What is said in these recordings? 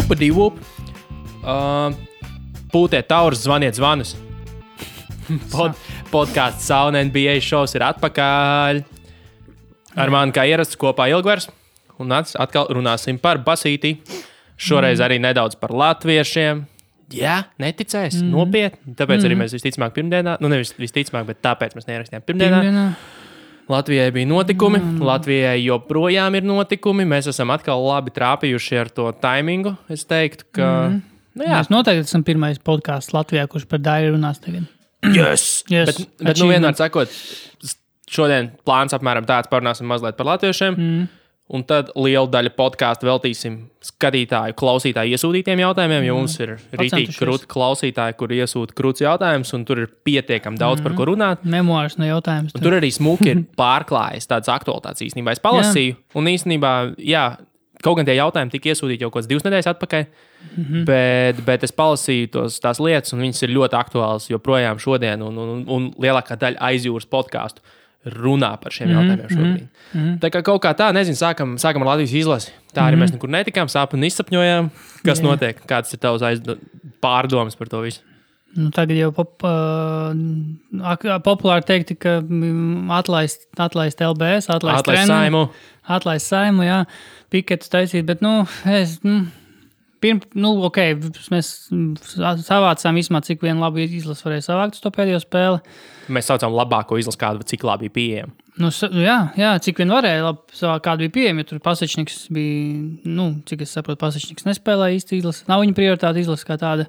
Upadi-vup. Pūtiet taurus, zvaniet zvanus. Podcasts Sauna NBA šovs ir atpakaļ. Ar mani kā ierasts kopā Ilgvers. Un atkal runāsim par basītī. Šoreiz arī nedaudz par latviešiem. Jā, neticēs, nopietni. Tāpēc arī mēs visticamāk pirmdienā, nevis visticamāk, bet tāpēc mēs neierakstījām pirmdienā. Latvijai bija notikumi, Latvijai joprojām ir notikumi. Mēs esam atkal labi trāpījuši ar to taimingu. Es teiktu, ka... Mēs noteikti esam pirmais podcasts Latvijā, kurš par Dairi runās tagad. Yes! Bet vienmēr sakot, šodien plāns apmēram tāds, parunāsim mazliet par latviešiem. Un tad lielu daļu podcastu veltīsim skatītāju, klausītāju iesūtītiem jautājumiem, jo mums ir rītīgi krūti klausītāji, kur iesūta krūts jautājums, un tur ir pietiekami daudz par ko runāt. Memoārs no jautājums. Tur arī smuki ir pārklājas tādas aktualitātes īstenībā. Es palasīju, un īstenībā, jā, kaut gan tie jautājumi tika iesūtīti jau kāds 2 nedēļas atpakaļ, bet es palasīju tās lietas, un viņas ir ļoti aktuālas joprojām šodien, un lielākā daļa aizjūras podcastu runā par šiem jautājumiem šobrīd. Tā kā kaut kā tā, nezinu, sākam ar Latvijas izlasi. Tā arī mēs nekur netikām, sāpuni izsapņojām. Kas notiek? Kāds ir tavs pārdomas par to visu? Nu, tagad jau populāri teikti, ka atlaist LBS, atlaist Saimu. Atlaist Saimu, jā, piketus taisīt, bet, mēs savācām vismaz, cik vien labu izlasu varēja savākt uz to pēdējo spēli. Mēs saucām labāko izlasu, kādu, cik labi bija pieejama. Jā, cik vien varēja savākt, kādu bija pieejama, jo tur Pasečniks bija, cik es saprotu, Pasečniks nespēlēja īsti izlasi. Nav viņa prioritāte izlasa kā tāda,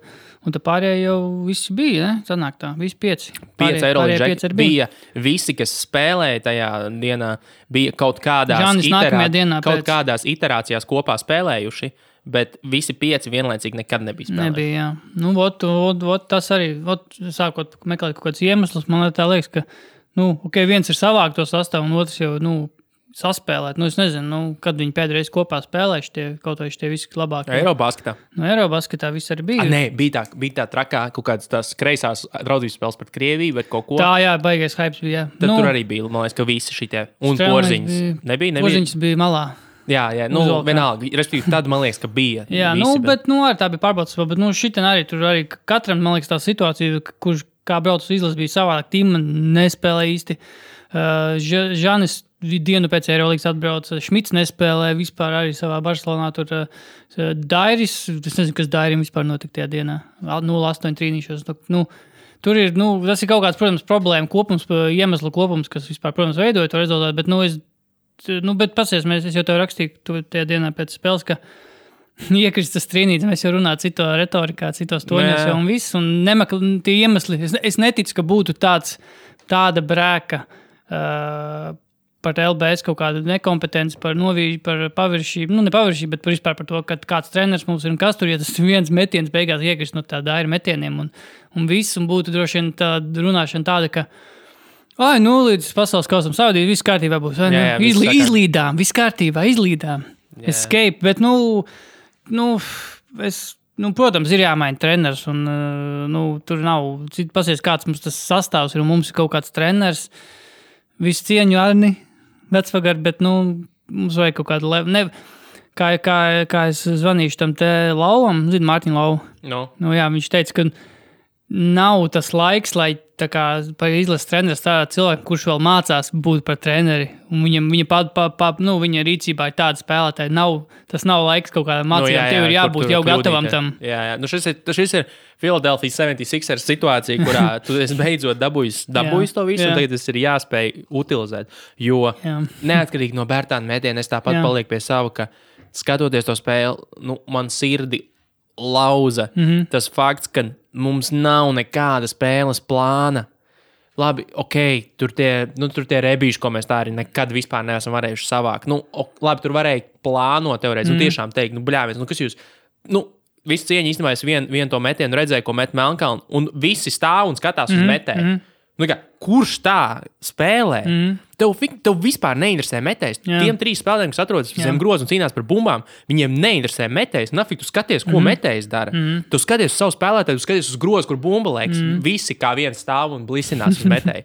un tā pārējie jau visi bija, ne? Sanāk tā, visi 5. 5 Eurolīga bija visi, kas spēlēja tajā dienā, bija kaut kādās iterācijās kopā spēlējuši. Bet visi 5 vienlaicīgi nekad nebija spēlējuši. Nebija, jā. Tas arī, sākot meklēt kaut kāds iemesls, man tā liekas, ka, viens ir savākt to sastāvu, un otrs jau, saspēlēt. Es nezinu, kad viņi pēdējais kopā spēlējuši kaut vai tie visi labākie. Eirobasketā. Eirobasketā viss arī bija. Nē, bija tā trakā, kaut kādas tās kreisās draudzības spēles pret Krieviju, bet kaut ko. Tā, jā, baigais hypes bija, jā. Tad tur arī bija, man liekas, ka visi šitie. Un Porziņas. Nebija? Porziņas bija malā. Jā, vienalga. Respektīvi, tad man liekas, ka bija. Jā, visi, bet arī tā bija pārbaudas, bet šitien arī tur arī katram, man liekas, tā situācija, kurš kā brauc uz izlases bija savādāk, Tima nespēlē īsti. Žanis dienu pēc Eirolīgas atbrauc, Šmits nespēlē vispār arī savā Barcelonā, tur Dairis, es nezinu, kas Dairim vispār notika tajā dienā, 0-8 trīnīšos, tur ir, tas ir kaut kāds, protams, problēma kopums, iemeslu kopums, kas vispār, protams, veidoja to rezultātu, bet pasies, es jau tev rakstīju tajā dienā pēc spēles, ka iekristas trīnīt, mēs jau runājam cito retorikā, citos toņos jau un viss, un tie iemesli, es neticu, ka būtu tāda brēka par LBS kaut kādu nekompetenci, par novīžu, par paviršību, ne paviršību, bet vispār par to, ka kāds treneris mums ir un kas tur, ja tas viens metiens beigās iekrist no tā Daira metieniem un viss, un būtu droši vien tāda runāšana tāda, ka līdz pasaules kausam saudīt, viss kārtībā būs. Izlīdām, viss kārtībā, izlīdām. Escape, bet, protams, ir jāmaina treneris, un, tur nav, pasies, kāds mums tas sastāvs ir, un mums ir kaut kāds treneris, visu cieņu Arni, vecvagari, bet, mums vajag kaut kādu kā es zvanīšu tam te Lauvam, Mārtiņu Lau. Jā, viņš teica, ka nav tas laiks, lai tā kā par izlases treneris tādā cilvēku, kurš vēl mācās būt par treneri, un viņa rīcībā ir tāda spēlētāja. Tas nav laiks kaut kādām mācībām, tev ir jābūt jau gatavam tam. Jā. Šis ir Philadelphia 76ers situācija, kurā tu esi beidzot dabūjis to visu, un tagad tas ir jāspēj utilizēt. Jo neatkarīgi no Bērtāna metiena, es tāpat palieku pie sava, ka skatoties to spēli, man sirdi lauza tas fakts, ka mums nav nekāda spēles plāna. Labi, tur tie rebīši, ko mēs tā arī nekad vispār neesam varējuši savākt. Labi, tur varēja plānot teorētiski, tiešām teikt, bļāvies, kas jūs, visu cieņu īstenībā es vienu to metienu redzēju, ko met Melnkalnu, un visi stāv un skatās uz metēju. Kurš tā spēlē? Tev vispār neinteresē metējs. Tiem 3 spēlētājiem, kas atrodas zem groza un cīnās par bumbām, viņiem neinteresē metējs. Nafik, tu skaties, ko metējs dara. Tu skaties uz savu spēlētāju, tu skaties uz grozu, kur bumba liekas. Visi kā viens stāv un blisinās uz metēju.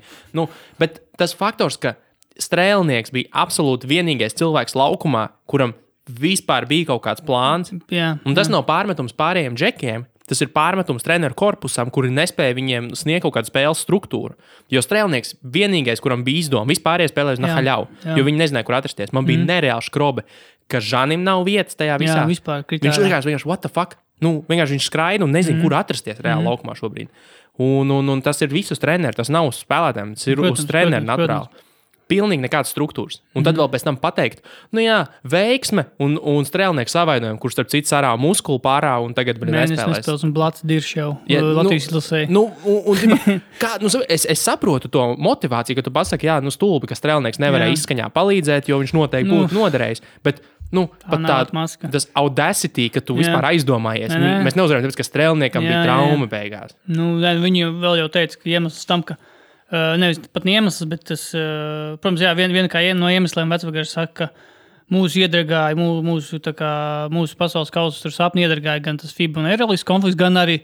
Bet tas faktors, ka Strēlnieks bija absolūti vienīgais cilvēks laukumā, kuram vispār bija kaut kāds plāns. Un tas nav pārmetums pārējiem džekiem. Tas ir pārmetums treneru korpusam, kuri nespēja viņiem sniegt kaut kādu spēles struktūru. Jo strēlnieks vienīgais, kuram bija izdoma, vispārējie spēlēja uz nahaļau, jo viņi nezināja, kur atrasties. Man bija nereāli škrobe, ka Žanim nav vietas tajā visā. Jā, vispār viņš vienkārši, what the fuck? Vienkārši viņš skraida un nezina, kur atrasties reāli laukumā šobrīd. Un tas ir visus treneru, tas nav uz spēlētājiem, tas ir uz treneru naturāli. Pilnīgi nekādas struktūras. Un tad vēl pēc tam pateikt, veiksme un strēlnieku savainojumi, kurš starp citu sarā muskuli pārā un tagad nespēlēs. Un Blats dirš jau Latvijas izlasē. Es saprotu to motivāciju, ka tu pasaki, stulbi, ka strēlnieks nevarēja izskaņā palīdzēt, jo viņš noteikti būtu noderējis. Bet pat tas audacity, ka tu vispār aizdomājies. Mēs neuzvarējām, tāpēc, ka strēlniekam bija trauma beigās. Viņi vēl jau teica, ka iemesls tam, ka nevis pat iemesls, bet tas, protams, viena kā no iemesliem Vecvagars saka, ka mūsu iedragāja, mūsu pasaules kausa tur sapni iedragāja gan tas FIBA un Eirolandes konflikts, gan arī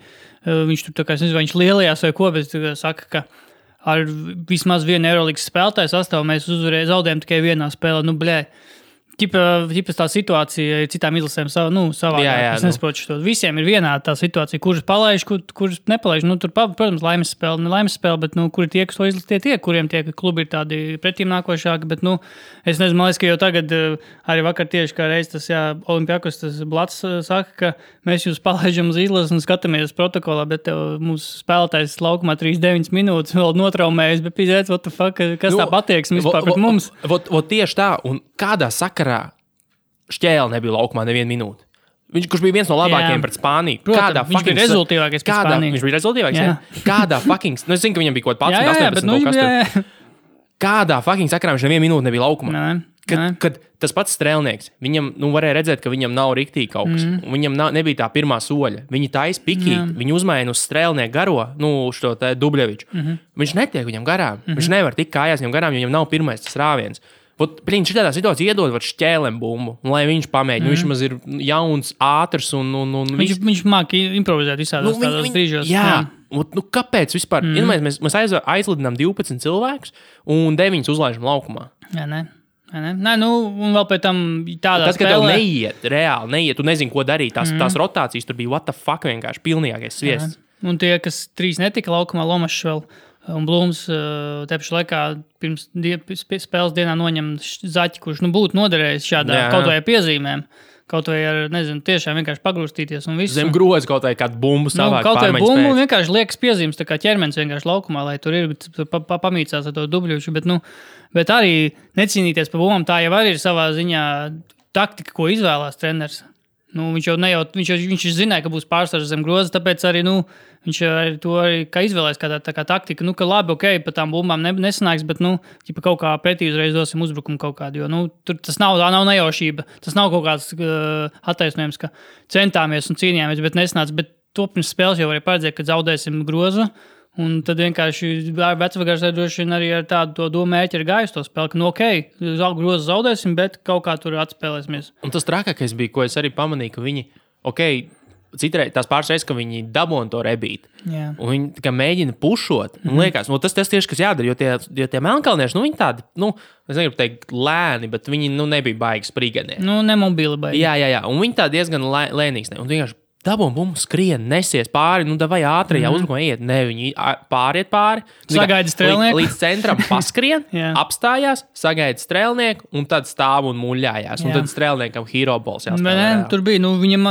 viņš tur, es nezinu, vai viņš lielajās vai ko, bet saka, ka ar vismaz vienu Eirolandes spēlētāju sastāvu mēs zaudējām tikai vienā spēlē. Ķipa tā situācija ir citām izlasēm savādāk. Es nesaprotu šo. Visiem ir vienāda tā situācija, kuras palaiž, kuras nepalaiž. Tur, protams, laimes spēle, bet kur ir tie, kas to izlasīt, kuriem tie klubi ir tādi pretīm nākošāki. Bet, es nezinu, man liekas, ka jau tagad, arī vakar tieši kā reiz tas Olimpiakos, tas Blats saka, ka mēs jūs palaižam uz izlases un skatāmies protokolā, bet mūsu spēlētājs laukumā 3-9 minūtes vēl notraumējas, bet pīzēc, what the fuck, kas tā patieksme vispār pret mums? Tieši tā, un kādā sakarā Šķēle nebija laukumā nevienu minūti. Kurš bija viens no labākajiem pret Spāniju. Protams, viņš bija rezultīvākais pret Spāniju. Viņš bija rezultīvākais? Kādā fucking... es zinu, ka viņam bija kaut 18. Kādā fucking sakarā viņš nevienu minūti nebija laukumā? Kad tas pats strēlnieks, viņam varēja redzēt, ka viņam nav riktīgi kaut kas. Viņam nebija tā pirmā soļa. Viņi taisa pikīt, viņi uzmaina uz strēlnieku garo, šo te Dubļeviču. Viņš netiek viņam garām. Viņš nevar tikt kājās viņam garām, jo viņam nav pirmais tas rāviens. Viņš tādā situācijā iedod Šķēlem bumbu, lai viņš pamēģina. Viņš maz ir jauns, ātrs un viņš māki improvizēt visādos tādos brīžos. Jā. Kāpēc vispār? Mēs aizlidinām 12 cilvēkus un 9 uzlaižam laukumā. Nē, un vēl pēc tam tādā spēlē. Kad tev neiet, tu nezini, ko darīt. Tās rotācijas tur bija what the fuck vienkārši pilnīgākais sviests. Un tie, kas 3 netika laukumā, Lomašs vēl un Blūms tepši laikā pirms spēles dienā noņem zaķi, kurš būtu noderējis šādā kaut vai piezīmēm. Kaut vai ar, nezinu, tiešām vienkārši pagrūstīties un visu. Zem grozi kaut vai kādu bumbu savāk kaut vai bumbu vienkārši liekas piezīmes, tā kā ķermenis vienkārši laukumā, lai tur ir pamīcās ar to dubļušu, bet arī necīnīties par bumbām, tā jau arī ir savā ziņā taktika, ko izvēlās treneris. Viņš zināja, ka būs pārsvars zem groza, tāpēc arī, viņš arī to kā izvēlēs kā taktika, ka labi, pa tām bumbām nesanāks, bet, kaut kā pretī uzreiz dosim uzbrukumu kaut kādu, jo, tas nav nejaušība, tas nav kaut kāds attaisnojums, ka centāmies un cīnījāmies, bet nesanāca, bet to pirms spēles jau varēja paredzēt, ka zaudēsim grozu, un tad vienkārši Vecvagars droši vien arī ar tādu to domu mērķi ir gājis to spēli, ka, grozu zaudēsim, bet kaut kā tur atspēlēsimies. Un tas trakākais bija, ko es arī pamanīju, ka viņi, citreiz tās pāris reizes, ka viņi dabūna to rebīt. Jā. Un viņi tā kā mēģina pušot. Un liekas, tas tieši, kas jādara, jo tie melnkalnieši, viņi tādi, es negribu teikt lēni, bet viņi, nebija baigi sprīganie. Nemobili baigi. Jā. Un viņi tā diezgan lēnīgs. Un vienkārši dabūna bumbu skrien, nesies pāri, vai ātrajā uzbrukumā iet. Ne, viņi pāriet pāri. Sagaida strēlnieku. Līdz centram paskrien, apstājās, sagaida strēlnieku un tad stāv un muļājās. Un tad strēlniekam hero balls jāspēlē. Tur bija, viņam,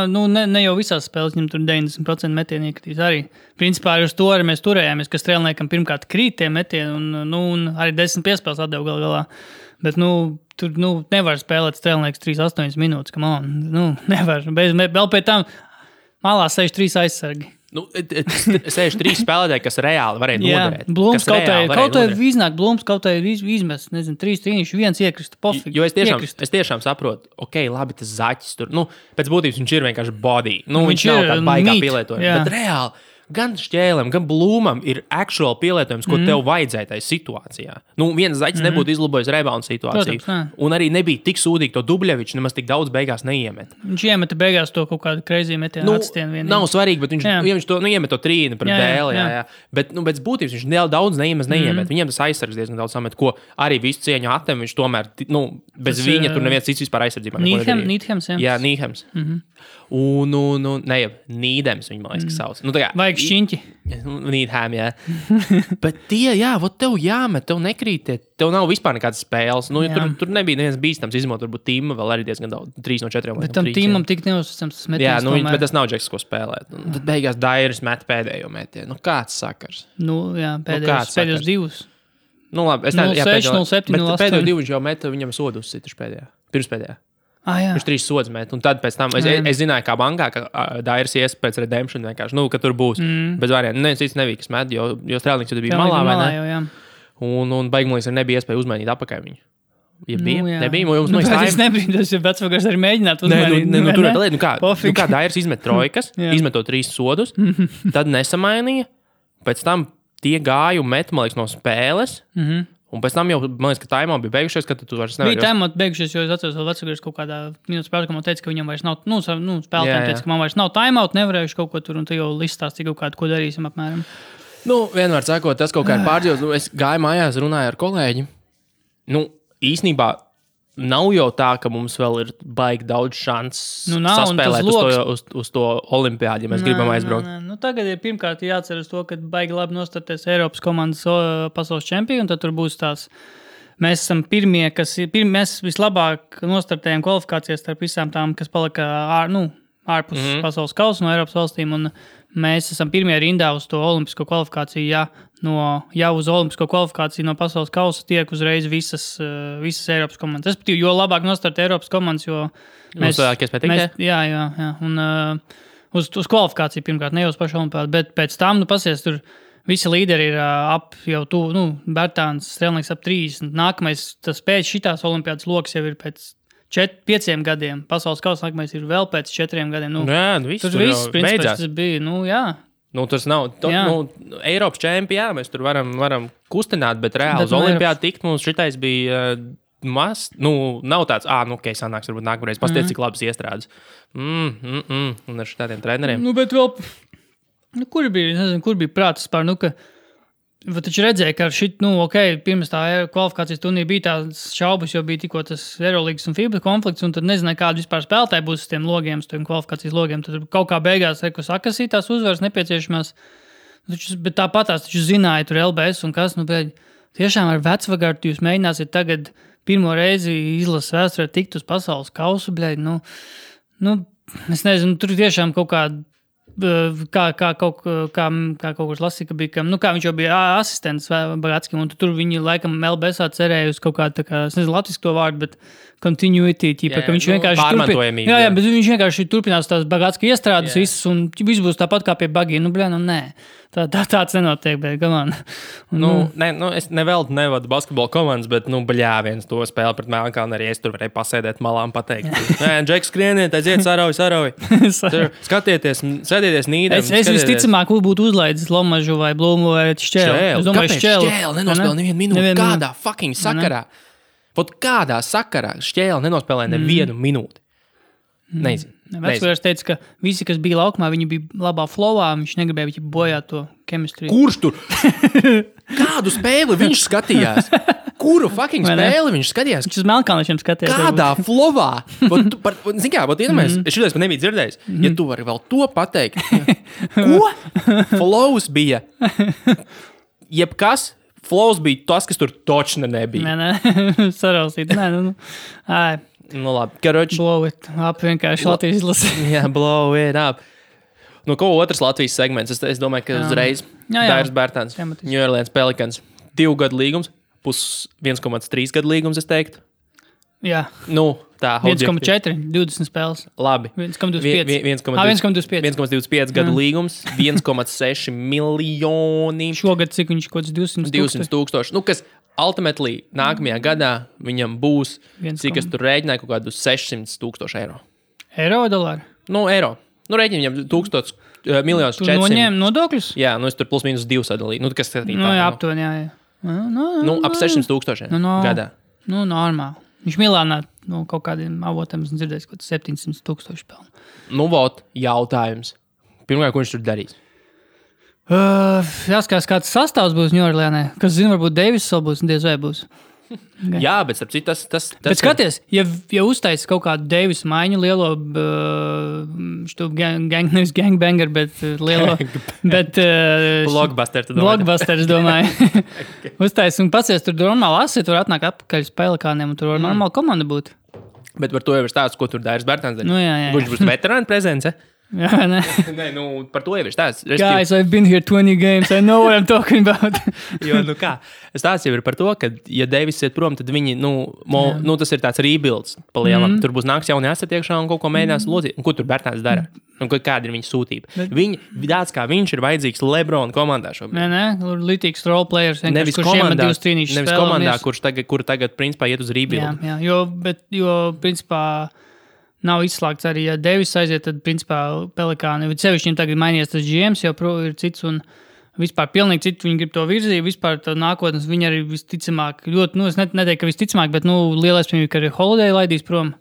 ne jau visās spēles, viņam tur 90% metieni iekritīs arī. Principā uz to arī mēs turējāmies, ka strēlniekam pirmkārt krīt tie metieni un arī 10 piespēles atdeva galā. Bet, tur, nevar spēlēt strēlnieks 3-8 minūtes, nevar. Vēl pēc tam malā 63 aizsargi. 63 spēlētāji, kas reāli varēja noderēt. Blūms kaut vai iznāk, Blūms kaut vai izmest, 3 trīniši, 1 iekrist, pofīgi. Jo es tiešām saprotu, labi, tas zaķis tur, pēc būtības viņš ir vienkārši body. Viņš nav tāda baigā pielietojuma. Bet reāli, gan šķēlēm, gan blūmam ir actual pielietojums, ko tev vajadzēja tajā situācijā. Nu, viens zaķis nebūtu izlabojis rebound situāciju. Protams, un arī nebija tik sūdīgi to Dubļevičs, nemaz tik daudz beigās neiemet. Viņš iemeta beigās to kaut kādu crazy metienu atstienu vienīgi. Nav svarīgi, bet viņš to iemet to trīni pret dēli. Jā. Bet pēc būtības viņš daudz neiemet. Viņiem tas aizsargs diezgan daudz samet, ko arī visu cieņu attem. Viņš tomēr, bez viņa tur neviens cits vispār aizsardzībā. Nīdhems, jā. Nīdhems. Un Nīdems viņa, man liekas, sauc. Vajag šķiņķi. Nīdhem, jā. Bet tie, tev jāmet, tev nekrīt, tev nav vispār nekādas spēles. Tur nebija neviens bīstams izmot, varbūt Tīma vēl arī diezgan daudz, 3 no 4. Bet tam Tīmam tik neuzticams tas metiens. Jā, bet tas nav Džeks, ko spēlēt. Tad beigās Dairis met pēdējo metienu. Kāds sakars? Pēdējos divus. Labi, 0,6, 0,7, 0,8. Pēdējo divu viņš jau meta, viņam sodu uzsita pirms pēdējā. Viņš 3 sodus met, un tad pēc tam es zināju, kā bankā, ka Dairis ies pēc redemption vienkārši, ka tur būs bez variantiem. Neviens cits nebija, kas met, jo Strēlnieks jau bija malā, vai ne? Un beigumlīgs nebija iespēja uzmainīt apakaļ viņu. Ja bija? Nebija, jums tas nebija, tas ir vecvagars arī mēģināt uzmainīt. Kā Dairis izmet trojkas, izmeto 3 sodus, tad nesamainīja, pēc tam tie gāja un met, man liekas, no spēles, un pēc tam jau, man liekas, ka timeout bija beigušies, ka tu vairs nevari. Bija timeout beigušies, jo es atceros vēl vecākais kaut kādā minūtes spēlē, ka man teica, ka viņam vairs nav, spēlētājiem teica, ka man vairs nav timeout, nevarējuši kaut ko tur, un tu jau listās tik kaut kādu, ko darīsim apmēram. Vienmēr sakot, tas kaut kā ir pārdzīvos. Es gāju mājās, runāju ar kolēģi. Īsnībā nav jau tā, ka mums vēl ir baigi daudz šans saspēlēt uz to olimpiādi, ja mēs gribam aizbraukt. Tagad ir pirmkārt jāatceras to, ka baigi labi nostarties Eiropas komandas pasaules čempioni, un tad tur būs tās. Mēs esam pirmie, mēs vislabāk nostartējam kvalifikācijas starp visām tām, kas palika ārpus pasaules kausa no Eiropas valstīm, un mēs esam pirmie rindā uz to olimpisko kvalifikāciju, jau uz olimpisko kvalifikāciju no pasaules kausa tiek uzreiz visas Eiropas komandas. Respektīvi, jo labāk nostart Eiropas komandas, jo mēs... Jā. Un uz kvalifikāciju pirmkārt, ne jau uz pašu olimpiādu, bet pēc tam, pasies, tur visi līderi ir ap jau Bertāns, Strēlnieks ap 30. Nākamais, tas pēc šitās olimpiādas loks jau ir pēc 5 gadiem. Pasaules kausa nākamais ir vēl pēc 4 gadiem. Tur viss beidzās. Tas bija, tas nav, Eiropas čempioni, mēs tur varam kustināt, bet reāli uz olimpiādu tikt mums šitais bija maz, nav tāds, sanāks, varbūt nākamreiz, pasties, cik labas iestrādes. Un ar šitādiem treneriem. Bet vēl, kur bija prātas par, ka taču redzēja, ka pirms tā kvalifikācijas turnīra bija tās šaubas, jo bija tikko tas Eurolīgas un FIBA konflikts, un tad nezināja, kāda vispār spēlētāji būs uz tiem logiem, uz tiem kvalifikācijas logiem. Tad kaut kā beigās sakasīt tās uzvaras nepieciešamās. Bet tāpat tās taču zināja tur LBS un kas. Tiešām ar vecvagaru jūs mēģināsiet tagad pirmo reizi izlases vēsturē tikt uz pasaules kausu. Es nezinu, tur tiešām kaut kāda kā kaut kur lasīja, ka bija, kā viņš jau bija asistents Bagatskam, un tur viņi laikam LBSā cerēja uz kaut kādu, es nezinu latviešu to vārdu, bet continuity, ka viņš vienkārši pārmantojamība. Jā, bet viņš vienkārši turpinās tās Bagatska iestrādes visas, un viss būs tāpat kā pie Bagī. Nē. Tāds nenotiek, bet gamān. Es neveltu nevadu basketbola komandas, bet, viens to spēli pret Melnkalni arī es tur varēju pasēdēt malā un pateikt. Džeks, skrieniet, aiziet, sarauj. Skatieties, sēdieties Nīdēm. Es visticamāk būtu uzlaidis Lomažu vai Blūmu vai Šķēli. Kāpēc Šķēli nenospēlē nevienu minūti? Kādā fucking sakarā? Kādā sakarā Šķēli nenospēlē nevienu minūti? Nezinu. Vecvārds teica, ka visi, kas bija laukumā, viņi bija labā flowā, viņš negribēja viņu bojāt to chemistry. Kurš tur? Kādu spēli viņš skatījās? Kuru fucking spēli viņš skatījās? Viņš uz Melnkalniešiem skatījās. Kādā flowā? Zin kā, šitais pat nebija dzirdējis. Ja tu vari vēl to pateikt. Ko? Flows bija. Jebkas. Flows bija tas, kas tur točne nebija. Nē, sarausīt. Labi, karoči. Blow it up, vienkārši Latvijas izlase. Jā, blow it up. Ko otrs Latvijas segments? Es domāju, ka uzreiz Dairis Bertāns, New Orleans Pelicans, 2 gadu līgums, 1,3 gadu līgums, es teiktu. Jā. Tā. 1,4, 20 spēles. Labi. 1,25. 1,25 gadu līgums, 1,6 miljoni. Šogad cik viņš kaut 200 tūkstoši. Kas ultimately nākamajā gadā viņam būs, cik es tur rēģināju, kaut kādu 600 tūkstoši eiro. Eiro vai dolāri? Eiro. Nu, rēķini viņam 1,400,000. Tu noņēmi nodokļus? Jā, nu es tur plus mīnus 2 sadalīju. Nu, kas nu, jā, aptuveni, jā. Ap 600,000 gadā. Nu, normāli. Viņš Milānā kaut kādiem avotiem dzirdējis, ka 700,000 pelnu. Nu, vot, jautājums. Pirmkārt, ko viņš tur darīs? Jāskatās, kāds sastāvs būs Ņūorleānē. Kas zina, varbūt Deivis vēl būs un diez vai būs. Jā, bet starp citu tas bet skaties, ja uztais kaut kādu Deivis maiņu lielo nevis gangbanger, bet lielo blockbuster, blockbuster, es domāju. Uztais un pacies tur normāli asi, tur atnāk atpakaļ uz Pelikāniem un tur var normāli komanda būt. Bet par to jau ir stāsts, ko tur Dairis Bērtāns darīja. Nu, jā. Viņš būs veterāna prezence. Jā, ne. Nē, nu, par to jau ir stāsts. Guys, I've been here 20 games, I know what I'm talking about. Jo, nu kā, stāsts jau ir par to, ka, ja Deivis iet prom, tad viņi, tas ir tāds rebuilds pa lielam. Tur būs nāks jauni aseti iekšā un kaut ko mēģinās locīt. Un ko tur Bērtāns dara? Un kāda ir viņa sūtība? Tāds kā viņš ir vajadzīgs LeBron komandā šobrīd. Nē, lītīgs role players. Nevis komandā, kur tagad principā iet uz rebuild. Jā, jo principā nav izslēgts arī, ja Deivis aiziet, tad principā Pelikāni. Sevišķi viņam tagad mainījies tas GMs, jau ir cits un vispār pilnīgi citu. Viņi grib to virzību, vispār tā nākotnes. Viņi arī visticamāk, ļoti, es neteiktu, ka visticamāk, bet lielais viņam, ka arī Holiday laidīs prom.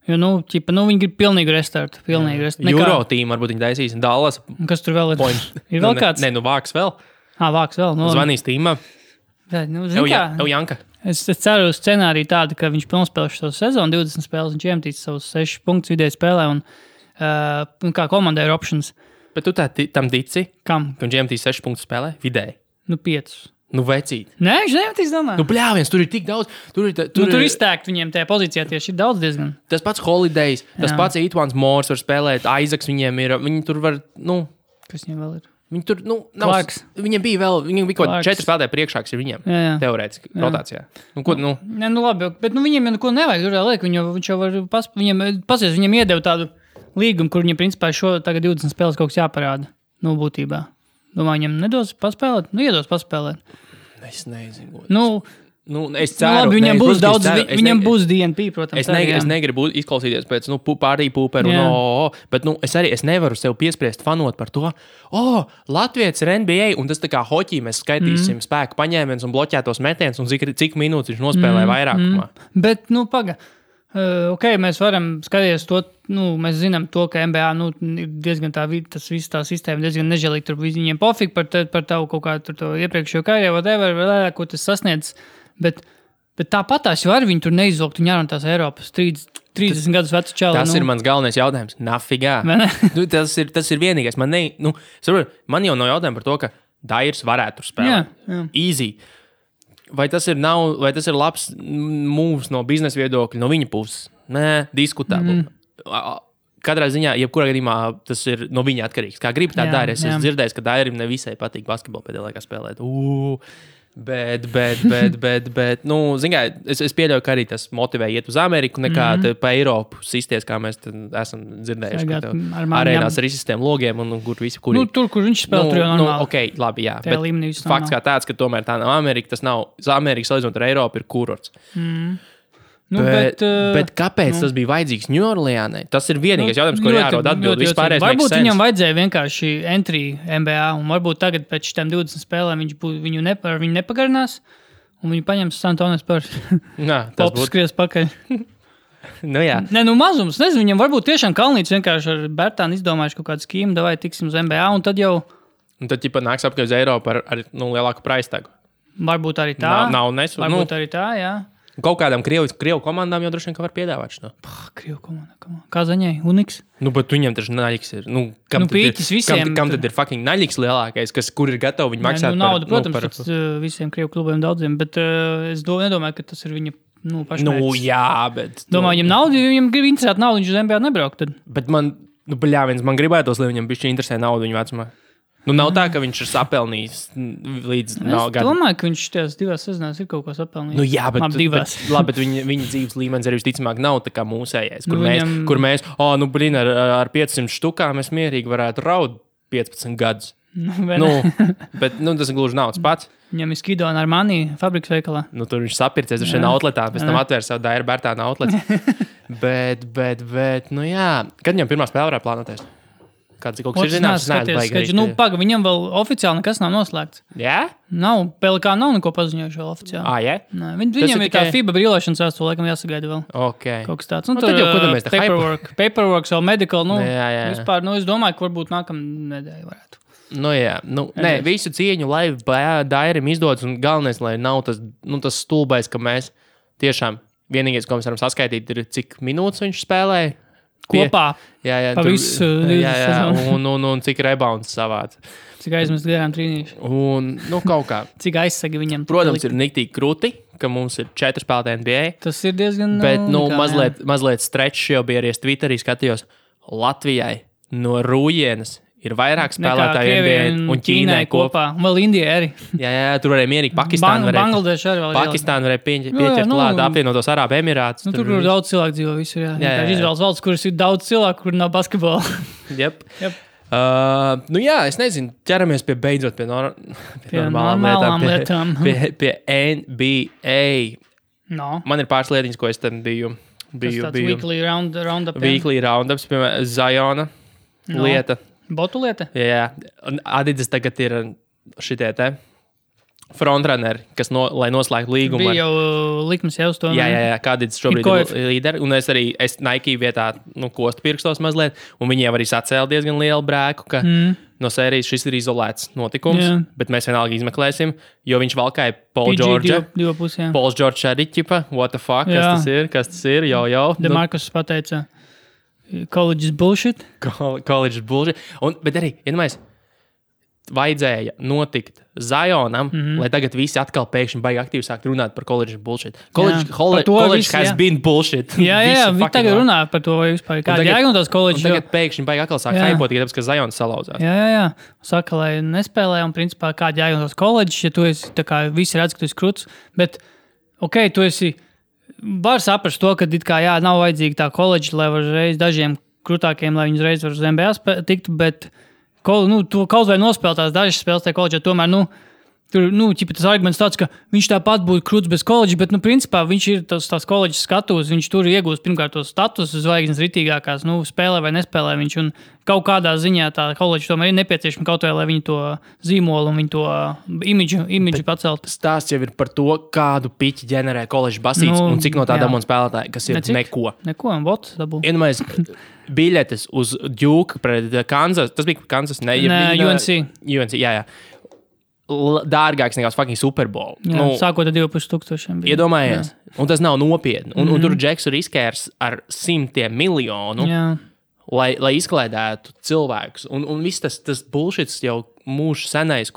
Jo, viņi grib pilnīgu restartu. Euro tīmu varbūt viņi taisīs un Dallas. Kas tur vēl ir? Ir vēl kāds? Nē, Vāks vēl. Vāks vēl. Zvanīs tīmā. Janka. Es ceru uz scenāriju tādu, ka viņš pilnspēlēs šo sezonu, 20 spēles, viņš iemetīs savus 6 punktus vidēji spēlē un kā komandai ir options. Bet tu tam tici? Kam? Ka viņš iemetīs 6 punktus spēlē vidēji? 5. Vecīt. Nē, viņš neiemetīs, domāju. Bļāviens, tur ir tik daudz. Tur iztēkt viņiem tajā pozīcijā tieši ir daudz diezgan. Tas pats Holidays, tas pats Etuans Moors var spēlēt, Isaacs viņiem ir, viņi tur var, Kas viņiem vēl ir? Viņi tur, viņiem bija kaut 4 spēlētāji priekšāks ir viņiem, teorētiski, rotācijā. Nē, labi, bet viņiem neko nevajag, tur liek, viņš jau var, viņiem iedeva tādu līgumu, kur viņiem principā tagad 20 spēles kaut kas jāparāda, būtībā. Domāju, viņiem nedos paspēlēt? Iedos paspēlēt. Es nezinu. Es ceru. Labi, viņam būs daudz, viņam būs DNP, protams. Es negribu izklausīties pēc, pārī pūperu, bet es nevaru sev piespriest fanot par to, Latvijas ir NBA, un tas tā kā hoķī mēs skaitīsim spēku paņēmienus un bloķētos metienus, un cik minūtes viņš nospēlēja vairākumā. Bet, paga. Mēs varam skatīties to, mēs zinām to, ka NBA, ir diezgan tas viss tā sistēma diezgan nežēlīgi, tur viņiem pofīgi par tavu kaut kādu to iepriekšējo karjeru, whatever, ko tas sasniedz. Bet tāpatās jau arī viņi tur neizvilkt un jārun tās Eiropas 30 gadus vecu čalu. Tas ir mans galvenais jautājums. Nafigā. Tas ir vienīgais. Man jau nav jautājumi par to, ka Dairis varētu tur spēlēt. Jā. Easy. Vai tas ir labs moves no biznesa viedokļa, no viņa puses? Nē, diskutabli. Katrā ziņā, jebkurā gadījumā, tas ir no viņa atkarīgs. Kā grib tā dara. Es esmu dzirdējis, ka Dairim nevisai patīk basketbolu pēdējā laikā spēlēt. Bet, zin kā, es pieļauju, ka arī tas motivē iet uz Ameriku nekā pa Eiropu sistties, kā mēs esam dzirdējuši. Arēnās ar izsistiem logiem un kur visi, kuri... tur, kur viņš spēl, tur jau normāli. Ok, labi, jā. Bet fakts kā tāds, ka tomēr tā nav Amerika, tas nav Amerika salīdzinot ar Eiropu ir kurorts. Bet kāpēc tas bija vajadzīgs Ņūorleānai? Tas ir vienīgais jautājums, ko jārod atbildi. Varbūt viņam vajadzēja vienkārši entry NBA, un varbūt tagad pēc šitām 20 spēlēm viņu nepagarinās, un viņu paņems Santones par popu skries pakaļ. Jā. Nē, mazums, nezinu, viņam varbūt tiešām Kalnīts vienkārši ar Bērtānu izdomājuši kaut kādu skīmu, davai tiksim uz NBA, un tad jau... Un tad nāks apkārt uz Eiropu ar lielāku praistagu. Varbūt arī tā. Varbūt arī tā, jā. Kaut kādām Krievu komandām jau droši vien, ka var piedāvāt šo. Krievu komanda. Kā zaņai? Uniks? Bet viņam taču naļiks ir. Pīķis visiem. Kam tad ir fucking naļiks lielākais, kur ir gatavi viņu maksāt naudu, protams, visiem Krievu klubiem daudziem, bet es nedomāju, ka tas ir viņa pašmērķis. Jā, bet... Domāju, viņam naudu, viņam grib interesēt naudu, viņš uz NBA nebraukt tad. Bet man gribētos, lai viņam bišķi interesē naudu viņu vecumā. Nav tā, ka viņš ir sapelnījis līdz gadu. Es domāju, ka viņš tajās 2 sezonās ir kaut ko sapelnījis. Jā, bet viņa dzīves līmenis arī visticamāk nav tā kā mūsējais, kur mēs, ar 500 štukām mēs mierīgi varētu raud 15 gadus. Bet tas gluži nav tas pats. Viņam ir Skido un Armani fabrikas veikalā. Tur viņš sapircies ar šiem outletā, pēc tam atvērs savu Daira Bērtāna outletu. bet, jā. Kad viņam pirmā spēle varētu plānoties? kāds kaut kas ir zināms, es neesmu baigi. Nu, paga, viņam vēl oficiāli nekas nav noslēgts. Jā? Nav, PLK nav neko paziņojuši vēl oficiāli. Jā? Viņam ir tā FIBA brīlošanas vēstule, laikam jāsagaida vēl. Kaut kas tāds. Un tad jau, ko mēs tā paperwork, vēl medical, jā. Vispār, es domāju, ka varbūt nākamā nedēļa varētu. Jā, visu cieņu, lai Dairim izdodas, un galvenais, lai nav tas stulbais, ka mēs tiešām vienīgais, ko mēs varam saskaitīt, ir cik minūtes viņš spēlēja. Kopā. Jā, pa visu. Jā, un cik rebounds savāc. Cik aizmest garām trīnīši. Un, kaut kā. Cik aizsagi viņam. Protams, ir niktīgi krūti, ka mums ir 4 spēlētāji NBA. Tas ir diezgan... Bet, mazliet stretch jau bija arī es Twitterī skatījos. Latvijai no Rūjienas ir vairāk spēlētāji NBA un Ķīnai kopā. Un vēl Indijai arī. Jā, tur varēja mierīgi Bangladeša arī vēl. Pakistāna varēja pieķert klāt, apvienotos Arābu Emirātus. Tur daudz cilvēku dzīvo visur, jā. Izvēles valsts, kuras ir daudz cilvēku, kur nav basketbola. Jep. Es nezinu, ķeramies beidzot pie normālām lietām. Pie NBA. No. Man ir pāris lietiņas, ko es tam biju. Weekly roundup. Weekly roundups, piemēram, Zajona lieta. Botu lieta? Jā. Un Adidas tagad ir šitie te frontrunneri, kas lai noslēgtu līgumu. Bija jau likums jau uz to. Jā, kā Adidas šobrīd ir līderi. Un es Nike vietā kostu pirkstos mazliet, un viņiem arī sacēla diezgan lielu brēku, ka no sērijas šis ir izolēts notikums, bet mēs vienalga izmeklēsim, jo viņš valkāja Paul George. Paul George arī ķipa, what the fuck, kas tas ir, jau. DeMarcus pateica, college is bullshit. College is bullshit. Bet arī, vajadzēja notikt Zionam, lai tagad visi atkal pēkšņi baigi aktīvi sākt runāt par college bullshit. College has been bullshit. Jā, viņi tagad runā par to, vai vispār kāda jēga no tās college. Un tagad pēkšņi baigi atkal sākt haipot, tāpēc, ka Zions salauzās. Jā. Saka, lai nespēlē, un principā kāda jēga no tās college, ja tu esi, tā kā visi redz, ka tu esi kruts, bet, tu esi, var saprast to, ka nav vajadzīga tā college, lai var reiz dažiem krutākiem, lai viņi reiz var uz NBA tikt, bet tu kaut vai nospēlēt tās dažas spēles tajā koledžā, tomēr, tur, tas arguments tāds, ka viņš tāpat būtu kruts bez koledža, bet, principā, viņš ir tās koledžas skatus, viņš tur iegūst pirmkārt tos status zvaigznes ritīgākās, spēlē vai nespēlē viņš, un kaut kādā ziņā tā koledža tomēr ir nepieciešama kaut vai, lai viņi to zīmolu un viņi to imidžu pacelt. Stāsts jau ir par to, kādu piķi ģenerē koledžas basīts un cik no tā dabū spēlētāji, kas ir neko. Neko, un bots dabū. Biļetes uz Duke pret Kansas, tas bija Kansas, UNC, jā. Dārgāks nekā fucking Super Bowl. Sākot ar 2,500. Iedomājies, un tas nav nopietni. Un tur Džeks ir riskērs ar 100 miljonu, lai izklaidētu cilvēkus. Un viss tas bullshits jau mūžs senais,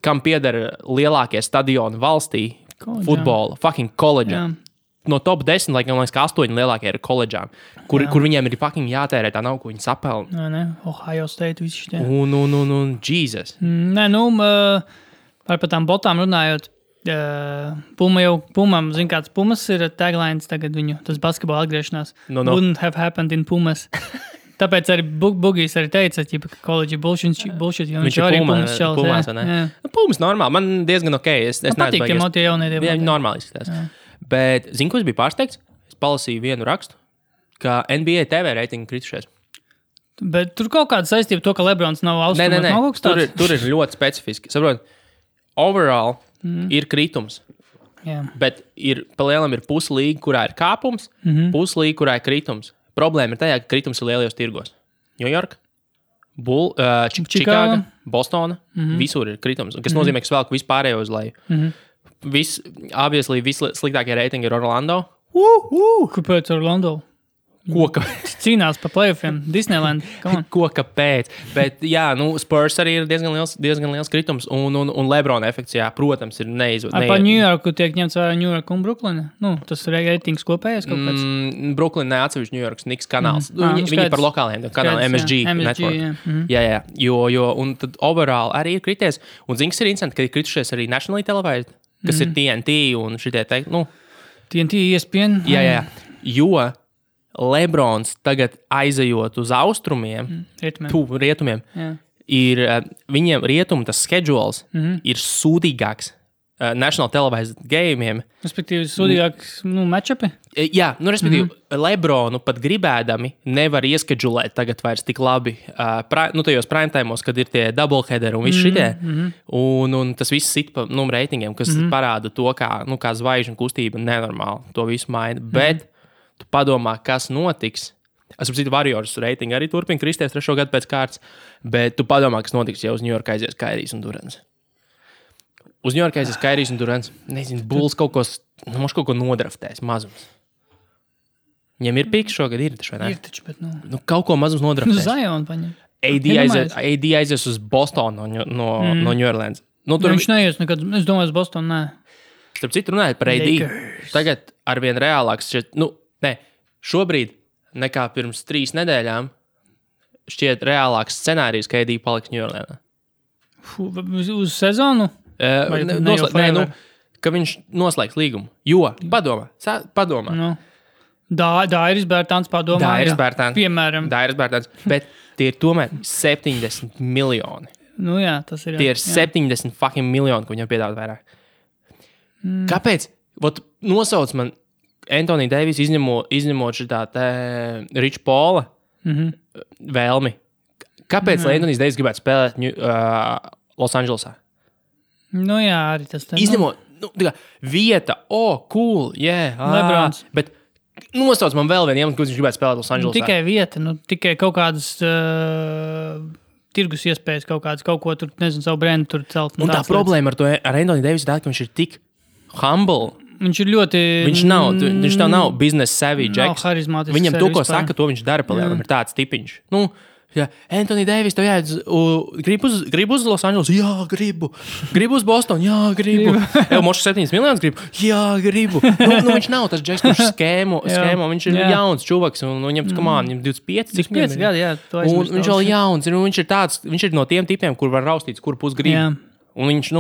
kam pieder lielākie stadioni valstī, futbola, fucking koledžā. No top 10, laikam, 8 lielākie ir koledžām, kur viņiem ir fucking jātērē tā nav, ko viņi sapelna. Ohio State visi šitie. Un Jesus. Par tām botām runājot, Pumam, zin kāds Pumas ir taglines tagad viņu, tas basketbola atgriešanās. Wouldn't have happened in Pumas. Tāpēc arī Bugijs arī teica, ka college bullshit, jo viņš arī Pumas čalis. Pumas normāli, man diezgan ok. Es patīk, ja motie jaunie divi. Jā, normāli izskatās. Bet, ko es biju pārsteigts? Es palasīju vienu rakstu, ka NBA TV reitingi kritušies. Bet tur kaut kāda saistība to, ka Lebrons nav austrumos. Tur ir ļoti specifiski. Saprot, overall ir kritums. Bet palielam ir puslīga, kurā ir kāpums, puslīga, kurā ir kritums. Problēma ir tajā, ka kritums ir lielajos tirgos. New York, Čikāga, Bostona, visur ir kritums. Kas nozīmē, ka svēlku vispārējo uz leju. Vissliktākie reitingi ir Orlando. Kāpēc Orlando? Cīnās par playoffiem. Disneyland. Kāpēc? Bet, Spurs arī ir diezgan liels kritums. Un Lebrona efekts, protams, ir neizvērts. Pa New Yorku tiek ņemts vērā New York un Brooklyn? Tas ir reitings kopējais kaut kāds? Brooklyn neatsevišķi New Yorks Knicks kanāls. Viņi par lokāliem kanāliem MSG Network. Jā. Jo, un tad overall arī ir krities. Un zini, kas ir interesanti, ka ir kritušies arī Nationally Televised, kas ir TNT un šitie teikt, TNT, ESPN. Jā. Jo Lebrons tagad aizejot uz austrumiem, rietumiem, ir viņiem rietumu tas schedules ir sūdīgāks National Televised game'iem. Respektīvi, sūdīgāks matchupi? Jā, respektīvi, Lebronu pat gribēdami nevar ieskedžulēt tagad vairs tik labi tajos primetājumos, kad ir tie doubleheaderi un viss šitie. Un tas viss sit pa reitingiem, kas parāda to, kā zvaigžņu kustība nenormāli to visu maina. Bet tu padomā, kas notiks. Es saprotu, Warriors reitingi arī turpina kristies 3. gadu pēc kārtas, bet tu padomā, kas notiks, ja uz New York aizies Kairijs un Durants. Uz New York aizies Kairijs un Durants. Nezinu, Bulls kaut ko nodraftēs mazums. Viņiem ir piks šogad, ir taču, vai ne? Ir taču, bet kaut ko mazums nodraftēs. Zion paņem. AD aizies uz Bostonu no New Orleans. Viņš neies nekad, es domāju, uz Bostonu, nē. Starp citu runājot par AD. Tagad arvien reālāks šobrīd nekā pirms 3 nedēļām šķiet reālāks scenārijs, ka AD paliks New Orleansā. Uz sezonu? Ka viņš noslēgs līgumu. Jo, padomā. Dairis Bērtāns padomā. Dairis Bērtāns. Piemēram. Dairis Bērtāns. Bet tie ir tomēr 70 miljoni. Jā, tas ir. Tie ir 70 fucking miljoni, ko viņam piedāvāt vairāk. Kāpēc? Nosauc man Anthony Davis izņemot šitā Rich Paula vēlmi. Kāpēc Anthony Davis gribētu spēlēt Los Andželosā? Jā, arī tas tā. Izņemot, vieta, cool, Lebrons. Bet nosauc man vēl vienu iemeslu, ko viņš gribētu spēlēt Los Andželosā. Tikai vieta, tikai kaut kādas tirgus iespējas, kaut ko tur, nezinu, savu brendu tur celt. Un tā problēma ar Anthony Davis ir tā, ka viņš ir tik humble. Viņš ir ļoti... Viņš nav business savvy Jacks. Nav harizmātisks. Viņam to, ko saka, to viņš dara palielam. Ir tāds tipiņš. Anthony Davis, tev gribu uz Los Angeles? Jā, gribu. Gribu uz Bostonu? Jā, gribu. Mošs 7 miljonus gribu? Jā, gribu. Viņš nav tas Jacks, kurš skēmo. Viņš ir jauns čuvaks un viņam 25, cik 5 gadi, jā. Un viņš vēl jauns. Viņš ir no tiem tipiem, kur var raustīts, kur pus grib. Un viņš,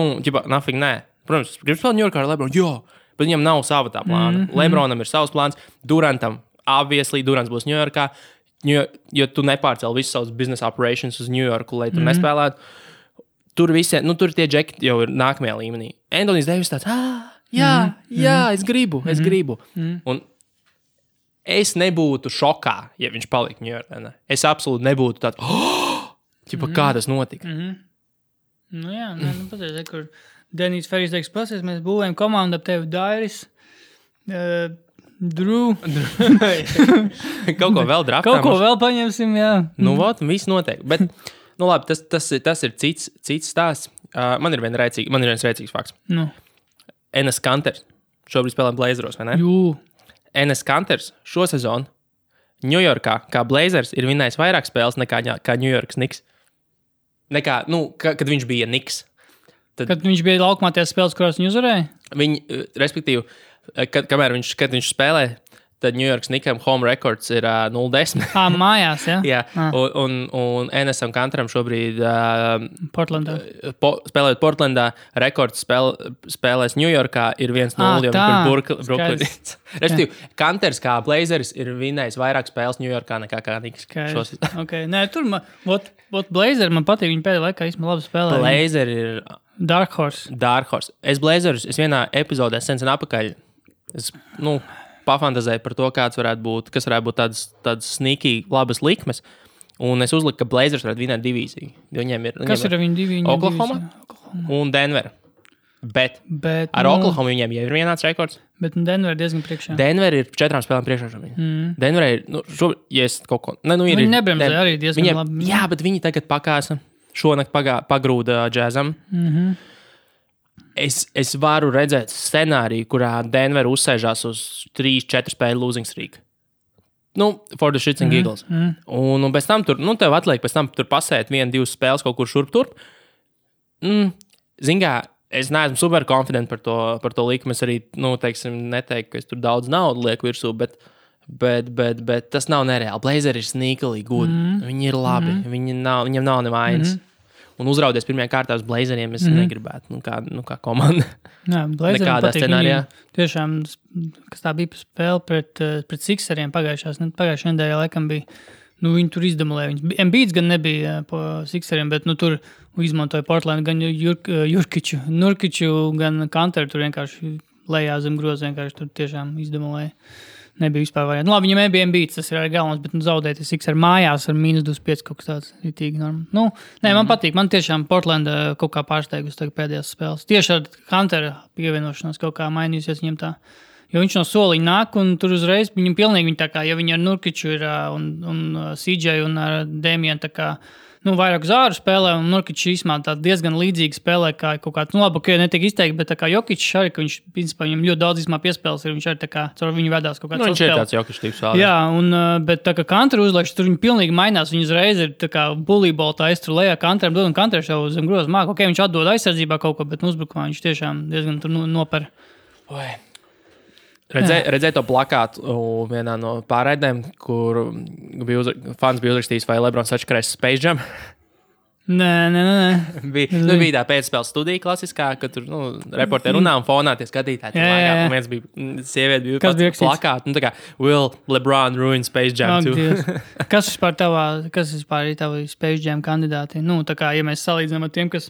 nafig, nē. Protams, gribu spēlēt New Yorkā ar Lebronu? Jā. Bet viņam nav sava tā plāna. Lebronam ir savs plāns. Durantam, obviously, Durants būs New Yorkā. Jo tu nepārcēli visus savus business operations uz New Yorku, lai tur nespēlētu. Tur tie džeki jau ir nākamajā līmenī. Anthony Davis tāds, es gribu. Un es nebūtu šokā, ja viņš palika New Yorkā. Es absolūti nebūtu tāds, kā tas notika. Patreiz, kur Denijs Ferijs teiks, pasies, mēs būvējam komandu ap tevi Dairis, Drew. Kaut ko vēl draftām. Kaut ko vēl paņemsim, jā. Viss notiek. Bet, labi, tas ir cits stāsts. Man ir viens rēcīgs fakts. Enes Kanters šobrīd spēlē Blazeros, vai ne? Enes Kanters šo sezonu New Yorkā, kā Blazers, ir vinnējis vairāk spēles nekā New Yorks Knicks. Kad viņš bija Knicks. Kad viņš bija laukumā tās spēles, kurās viņi uzvarēja? Respektīvi, kad viņš spēlē, tad New York Knicksam home records ir 0-10. Mājās, jā? Jā, un Enesam Kanteram šobrīd Portlandā. Spēlējot Portlandā, rekords spēlēs New Yorkā ir 1-0, jo Brooklyn. Respektīvi, Kanters kā Blazers ir vinnējis vairāk spēles New Yorkā nekā Knicks. Okay. Nē, tur Blazer man patīk, viņi pēdējā laikā īstenībā labi spēlē. Blazer ir Dark Horse. Es vienā epizodē sen apakaļ pafantazēju par to, kas varētu būt tādas sneaky labas likmes. Un es uzliku, ka Blazers varētu vinēt divīziju. Kas ir viņu divi? Oklahoma un Denver. Bet ar Oklahoma viņiem jau ir vienāds rekords. Bet Denver diezgan priekšā. Denver ir 4 spēlēm priekšā šobrīd. Denver ir, ja es kaut ko... Viņi nebremzē arī diezgan labi. Jā, bet viņi tagad pakāsa. Šonakt pagrūda džēzam. Es varu redzēt scenāriju, kurā Denver uzsēžās uz 3-4 spēļu losing streak. For the shits and giggles. Un pēc tam tur, tev atliek pēc tam tur pasēt 1-2 spēles kaut kur šurp turp. Zingā, es neesmu super confident par to likmi. Es arī, neteiktu, ka es tur daudz naudu lieku virsū, bet tas nav nereāli. Blazer ir sneakily good. Viņi ir labi. Viņiem nav nevainas. Un uzraudies pirmajā kārtā uz Blazeriem es negribētu, kā komanda. Jā, Blazeriem patīk. Tiešām, kas tā bija spēle pret Sixeriem pagājušajā nedēļā, laikam bija viņi tur izdemolēja. Embiids gan nebija po Sixeriem, bet tur izmantoja Portland gan Nurkiču, gan Kanteru. Tur vienkārši lejā zem groza vienkārši tur tiešām izdemolēja. Nebija vispār varianti. Labi, viņam nebija Embiids, tas ir arī galvens, bet zaudēt Sixer mājās ar -25 kaut kas tāds ritīgi norma. Man patīk. Man tiešām Portlanda kaut kā pārsteigus pēdējās spēles. Tieši ar Kantera pievienošanos kaut kā mainījusies viņam tā. Jo viņš no soliņa nāk un tur uzreiz viņam pilnīgi tā kā, ja viņi ar Nurkiču ir un CJ un ar Damienu tā kā, vairāk zāru spēlē un Nurkičs īsmā tā diezgan līdzīgi spēlē kā kaut kāds, labi, ka netiek izteikti, bet tā kā Jokičs arī, ka viņš, principā, viņam ļoti daudz īsmā piespēles ir, viņš arī tā kā, caur viņu vedās kaut kāds viņš ir tāds Jokičs tips vēl. Jā, bet tā kā Kanteru uzlaiks, tur viņi pilnīgi mainās, viņi uzreiz ir tā kā bullybola tā aiztur lejā Kanteram dod un Kanteru jau zem groza māk, ok, viņš atdod aizsardzībā kaut ko, bet uzbrukumā viņš tiešām diezgan tur noper. Redzēju to plakātu vienā no pārraidēm, kur fans bija uzrakstījis, vai Lebrons atškarēs Space Jam. Nē. Bija tā pēcspēles studija klasiskā, ka tur reporteri runā un fonā tie skatītāji. Un viens bija sieviete, bija pats plakāts. Tā kā, will LeBron ruin Space Jam too? Kas vispār ir tavi Space Jam kandidāti? Tā kā, ja mēs salīdzinām ar tiem, kas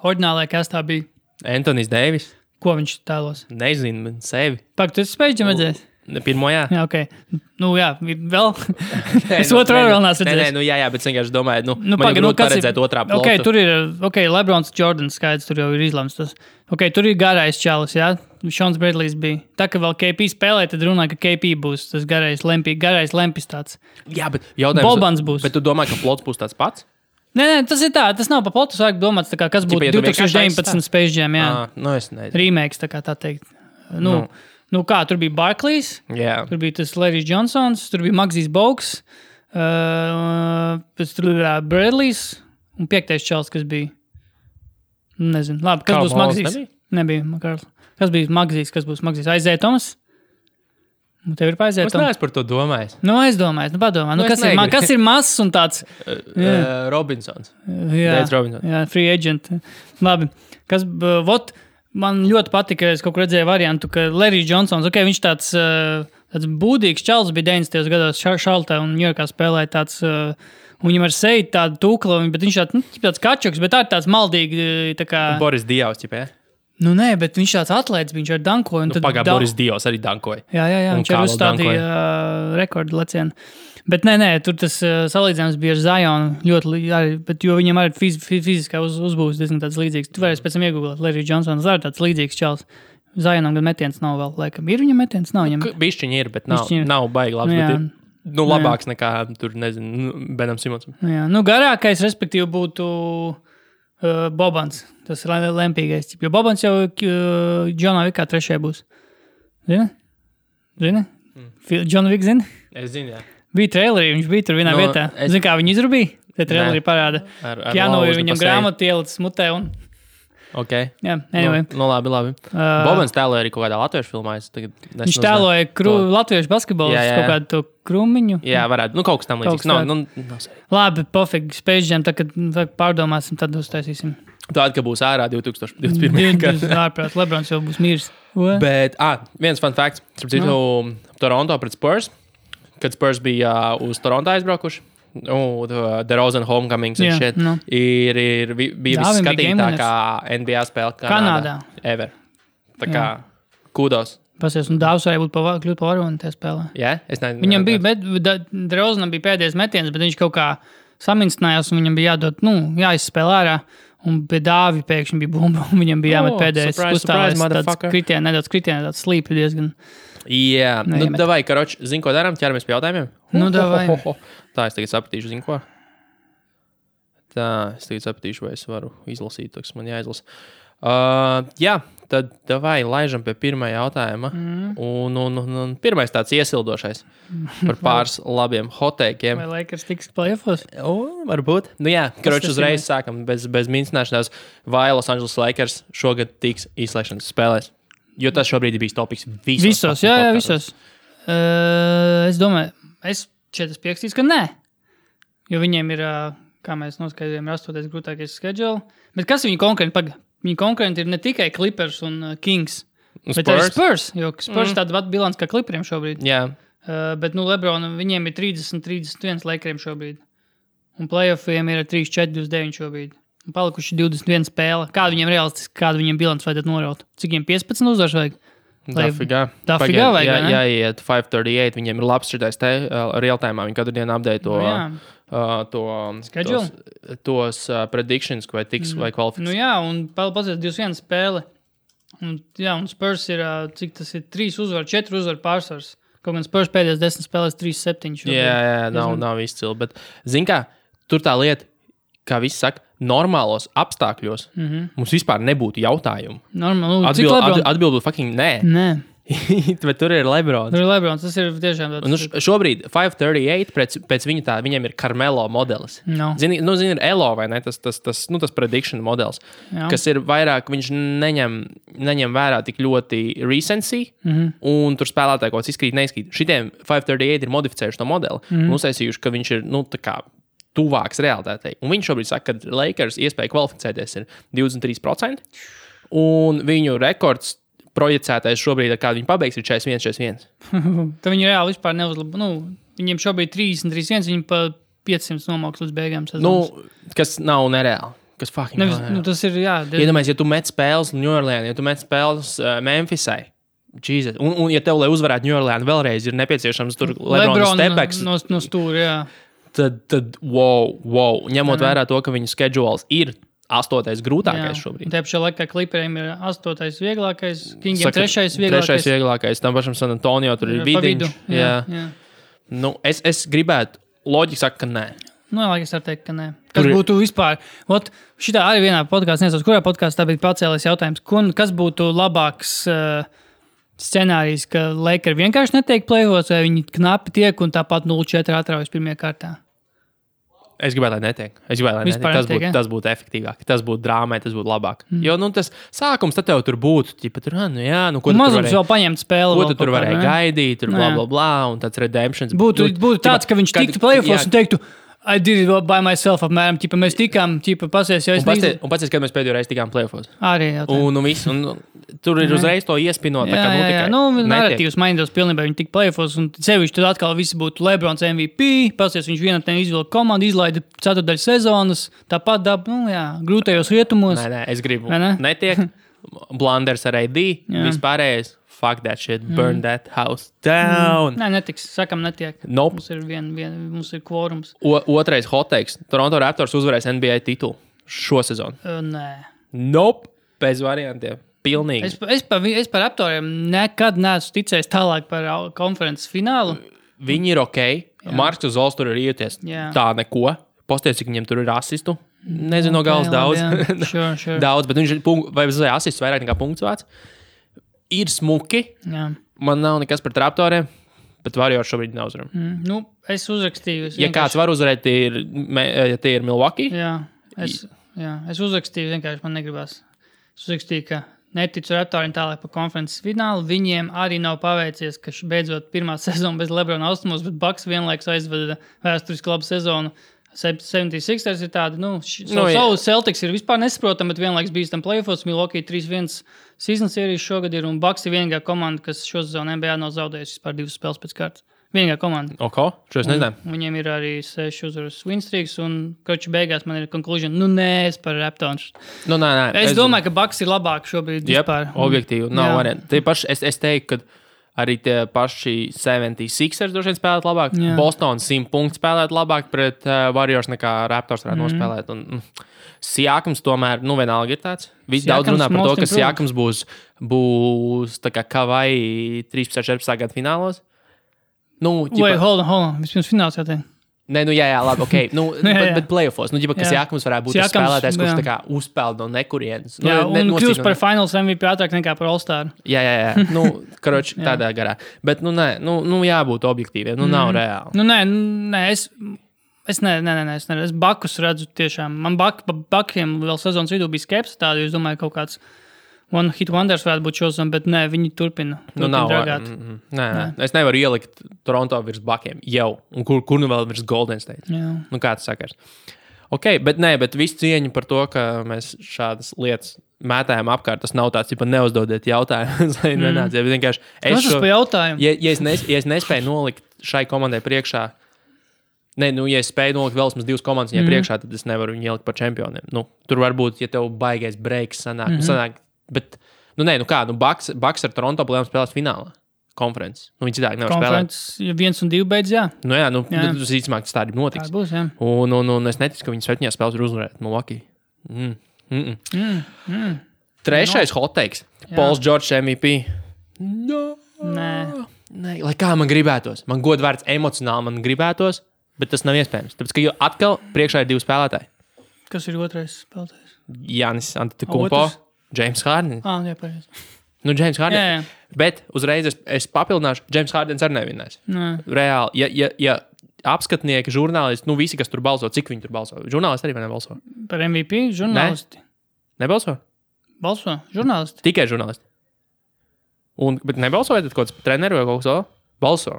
oriģinālajā kastā bija. Anthony's Davis. Ko viņš tēlos? Nezinu, sevi. Pak, tu esi Space Jam redzējis? Pirmo, jā. Jā, ok. Vēl? Es otru vēl neesmu redzējis. Jā, bet es vienkārši domāju, man ir grūti paredzēt otrā plotu. Ok, tur ir, Lebrons Jordans skaidrs, tur jau ir izlemts tas. Ok, tur ir garais čalis, jā? Šons Bredlijs bija. Tā, ka vēl KP spēlē, tad runāja, ka KP būs tas garais lempis tāds. Jā, bet jautājums... Bobans būs. Bet tu domā, ka plots būs tāds pats? Nē, tas ir tā, tas nav pa plotu, sāk domāts, tā kā, kas būtu 2019 Space Jam, jā. Es nezinu. Remakes, tā kā tā teikt. Kā, tur bija Barclays, tur bija tas Larry Johnsons, tur bija Magzijs Bogues, pēc tur bija Bradleys un 5. čals, kas bija. Nezinu. Labi, kas būs Magzijs? Nebija, Karls. Kas bija Magzijs, kas būs Magzijs? Aizēja Tomas? Tev ir paiziet. Es neesmu par to domājis. Es domāju, padomā. Kas ir mazs un tāds? Robinsons. Jā, free agent. Labi. Man ļoti patika, es kaut kur redzēju variantu, ka Larry Johnsons, ok, viņš tāds būdīgs čals bija 90. gados Šaltā un Ņujorkā spēlēja tāds, un viņam ar seju tādu tūklu, bet viņš tāds kačuks, bet tāds maldīgi, tā kā... Boris Dievs, ķipē? Nē, bet viņš tāds atlēts, viņš ar dankoja. Boris Dievs arī dankoja. Jā, viņš ar uzstādīja rekordu lecienu. Bet nē, tur tas salīdzinājums bija ar Zionu ļoti, bet jo viņam arī fiziskā uzbūs diezgan tāds līdzīgs. Tu varēsi pēc tam iegooglēt, Larry Johnsons arī tāds līdzīgs čals. Zionam gan metiens nav vēl, laikam. Ir viņam metiens? Nav viņam. Bišķiņi ir, bet nav baigi labs. Bet ir, labāks nekā tur, nezinu, Benam Simonsam. Jā, garākais, respektīvi, būtu Bobans. Tas ir lempīgais. Jo Bobans jau Džonā Vikā 3. būs. Zini? Džona Vik zini? Es zinu, jā. Bija trailerī, viņš bija tur vienā vietā. Zini, kā viņi izrubīja? Te trailerī parāda. Jāno ir viņam grāmatu ielicis mutē un... Ok. Jā, anyway. Labi. Bobans tēloja arī kaut kādā latviešu filmā. Viņš tēloja latviešu basketbolu, kaut kādu to Krumiņu. Jā, varētu. Kaut kas tam līdzīgs. Labi, pofīgi, Space Jam, tad, kad pārdomāsim, tad uztaisīsim. Tāda, ka būs ārā 2021. Ārprāt, Lebrons jau būs miris. Bet, viens fun facts. Toronto pret Spurs. Kad Spurs bija uz Toronto aizbraukuši. The Rosen Homecomings and shit. Ir bija visskatītākā NBA spēle Kanādā. Ever. Tā kā kudos. Pasies, un Dāvs varēja kļūt pa varoni tajā spēlē. Jā, es nezinu. Viņam bija, Rosenam bija pēdējais metiens, bet viņš kaut kā samincinājās, un viņam bija jādod, jāizspēlē ārā. Un pie Dāvi pēkšņi bija bumba, un viņam bija jāmet pēdējais uzstāvēs. Nedaudz kritienē, tāds slīpi diezgan. Jā, davai, karoči, zini, ko darām? Ķeramies pie jautājumiem? Davai. Tā, es tagad sapratīšu, zinu, ko? Tā, es tagad sapratīšu, vai es varu izlasīt, tas man jāizlasa. Jā, tad davai, laižam pie pirmā jautājuma. Un pirmais tāds iesildošais par pāris labiem hoteikiem. Vai Lakers tiks playoffs? Varbūt. Jā, karoči, uzreiz sākam bez mincināšanās. Vai Los Angeles Lakers šogad tiks izslēgšanas spēlēs? Jo tas šobrīd ir bijis topiks visos. Jā, visos. Es domāju, es pierakstīšu, ka nē. Jo viņiem ir, kā mēs noskaidrojam, ir 8. grūtākais schedule. Bet kas viņi konkurenti? Viņi konkurenti ir ne tikai Clippers un Kings, bet arī Spurs. Jo Spurs tāda pat bilants kā Clipperiem šobrīd. Jā. Bet, Lebronam viņiem ir 30-31 Lakeriem šobrīd. Un playoffiem ir 3-4-29 šobrīd. Un palikuši 21 spēle. Kādu viņiem realistiski, kādu viņiem bilants vajadzētu noraut? Cik viņiem 15 uzvars vajag? Dafigā vajag, ne? Jāiet 538, viņiem ir labs šitais te real-time, viņi katru dienu update tos predictions, vai tiks vai kvalifikācijas. Jā, un pazies 21 spēle. Un Spurs ir, cik tas ir, 3 uzvar, 4 uzvar pārsvars. Kaut gan Spurs pēdējās 10 spēlēs 3-7. Jā, nav izcili, bet zin kā, tur tā lieta, kā visi saka, normālos apstākļos mums vispār nebūtu jautājumu. Atbild būtu fucking nē. Bet tur ir Lebrons. Tas ir tiešām tāds. Šobrīd 538 pēc viņa tā, viņam ir Carmelo modelis. No. Zini, ir Elo, vai ne? Tas prediction modelis, kas ir vairāk, viņš neņem vērā tik ļoti recency, un tur spēlētāji kaut kas izkrīt, neizkrīt. Šitiem 538 ir modificējuši to modeli, un uztaisījuši, ka viņš ir, tā kā tuvāks realitātei. Un viņš šobrīd saka, ka Lakers iespēja kvalificēties ir 23%, un viņu rekords projicētais šobrīd, ar kādu viņi pabeigs, ir 41-41. Tad viņi reāli vispār neuzlabo. Viņiem šobrīd 30-31, viņi pa 500 nomauks līdz beigām sezonas. Kas nav nereāli. Kas fucking nereāli. Tas ir, jā. Iedomājies, ja tu met spēles New Orleans, ja tu met spēles Memphisai, Jesus. Un ja tev, lai uzvarētu New Orleans, vēlreiz ir nepieciešams tur Lebrona stepbacks. No stūra, jā. Tad wow. Ņemot vērā to, ka viņu schedules ir 8. grūtākais šobrīd. Tajā pašā laikā Clipperiem ir 8. vieglākais, Kingiem 3. vieglākais. 3. vieglākais, tam pašam San Antonio tur ir vidiņš. Jā. Es gribētu, loģiski saka, ka nē. Es varu teikt, ka nē. Kas būtu vispār? Šitā arī vienā podkāstā, nezinu, kurā podkāstā bija pacēlies jautājums, kas būtu labāks scenārijs, ka Lakers vienkārši netiek play-offs, vai viņi knapi tiek un tāpat 0-4 atraujas pirmajā kārtā? Es gribētu, lai netiek. Tas būtu efektīvāk. Tas būtu drāmai, tas būtu labāk. Jo, tas sākums tad tev tur būtu. Ko tu tur vēl paņemt spēli. Ko tu tur varēji gaidīt, tur bla, un tāds redemptions. Būtu tāds, ka viņš tiktu play-offs un teiktu, I did it by myself, apmēram. Mēs tikām, pasies, jo es nezinu. Un pats, kad mēs pēdējo reizi tikām play-offs. Arī, jā. Un tur ir uzreiz to iespinot. Narratīvs mainītos pilnībā, viņi tik play-offs, un sevišķi tad atkal visi būtu Lebrons MVP, pasies, viņš vienatnē izvilka komandu, izlaida ceturdaļu sezonas, tāpat grūtajos rietumos. Nē, es gribu. Netiek. Blunders ar AD, vispārējais. Fuck that shit, burn that house down. Nē, netiks. Sakam, netiek. Nope. Mums ir kvorums. Otrais hot takes. Toronto Raptors uzvarēs NBA titulu šo sezonu. Nē. Nope. Bez variantiem. Pilnīgi. Es par Raptoriem nekad neesmu ticējis tālāk par konferences finālu. Viņi ir ok. Marks Zols tur ir ieties. Tā neko. Posties, cik viņiem tur ir asistu. Nezinu, no galas daudz. Sure. Daudz, bet viņš ir vai asists vairāk nekā punkts vārds. Ir smuki. Jā. Man nav nekas par Raptoriem, bet Warriors šobrīd neuzvaram. Es uzrakstīju. Ja kāds var uzvarēt, tie ir Milwaukee. Es uzrakstīju, vienkārši man negribas. Es uzrakstīju, ka neticu Raptoriem tālāk par konferences finālu. Viņiem arī nav paveicies, ka beidzot pirmā sezona bez Lebrona austumos, bet Bucks vienlaikus aizveda vēsturiski labu sezonu. 76ers ir tādi, Celtics ir vispār nesaprotami, bet vienlaiks bijis tam play-offs, Milwaukee 3-1 season series šogad ir, un Bucks ir vienīgā komanda, kas šo sezonu NBA nav zaudējusi vispār 2 spēles pēc kārtas. Vienīgā komanda. Šo es nezinu. Viņiem ir arī 6 uzvaras win streaks, un koči beigās man ir conclusion, es par Raptors. Nē. Es domāju, ka Bucks ir labāk šobrīd vispār. Objektīvi, nav varianti. Es teiktu, ka arī tie paši 76ers droši vien spēlēt labāk. Boston 100 punktu spēlēt labāk pret Warriors nekā Raptors varētu nospēlēt. Un Siakams tomēr, vienalga ir tāds. Visi daudz runā par to, ka Siakams būs tā kā Kavai 13-14 gadu finālos. Hold on. Vispirms fināls jāteikt. Nē, jā, labi, ok. Bet playoffs. Ka Siakams varētu būt tas spēlētājs, kurš tā kā uzpeld no nekurienes. Un kļūst par finals MVP ātrāk nekā par All-Star. Jā. Karoči, tādā garā. Bet, jābūt objektīviem. Nav reāli. Nē, es neredzu. Es Bakus redzu tiešām. Man Bakiem vēl sezonas vidū bija skepsis tādu, jo es domāju, kaut kāds One Hit Wonders varētu būt šodien, bet nē, viņi turpina dragāt. Nē. Es nevaru ielikt Toronto virs Buckiem jau. Un kur nu vēl virs Golden State? Jā. Kā tas sakars? Ok, bet visu cieņu par to, ka mēs šādas lietas mētājam apkārt, tas nav tāds, ja neuzdodiet jautājumus, lai nenāciet. Vienkārši es šo jautājumu. Ja es nespēju nolikt šai komandai priekšā, ja es spēju nolikt vēl vismaz 2 komandas viņai priekšā, tad es nevaru viņu ielikt par čempioniem. Tur varbūt, ja tev baigais breaks sanāk, bet, Bucks ar Toronto plēm spēlēs finālā. Konferences. Viņi citādi nevar spēlēt. Ja 1 un 2 beidz, jā. Tas īstenībā tas tā arī notiks. Tā būs, jā. Un es neticu, ka viņi 7 spēles var uzvarēt Milwaukee. Trešais hot takes. Pauls George MVP. Nē. Lai kā man gribētos. Man godvārds emocionāli man gribētos, bet tas nav iespējams. Tāpēc, ka atkal priekšā ir 2 spēlētāji. Kas ir otrais spēlētājs? Jānis Antetokounmpo, James Harden. Jā, pareizi. James Harden. Bet uzreiz es papildināšu, James Hardens arī nevinās. Reāli, ja apskatnieki, žurnālisti, visi, kas tur balso, cik viņi tur balso? Žurnālisti arī vai nebalso? Par MVP žurnālisti. Nebalso? Balso, žurnālisti. Tikai žurnālisti. Bet nebalsoja tad kaut kāds treneri vai kaut kas vēl? Balso.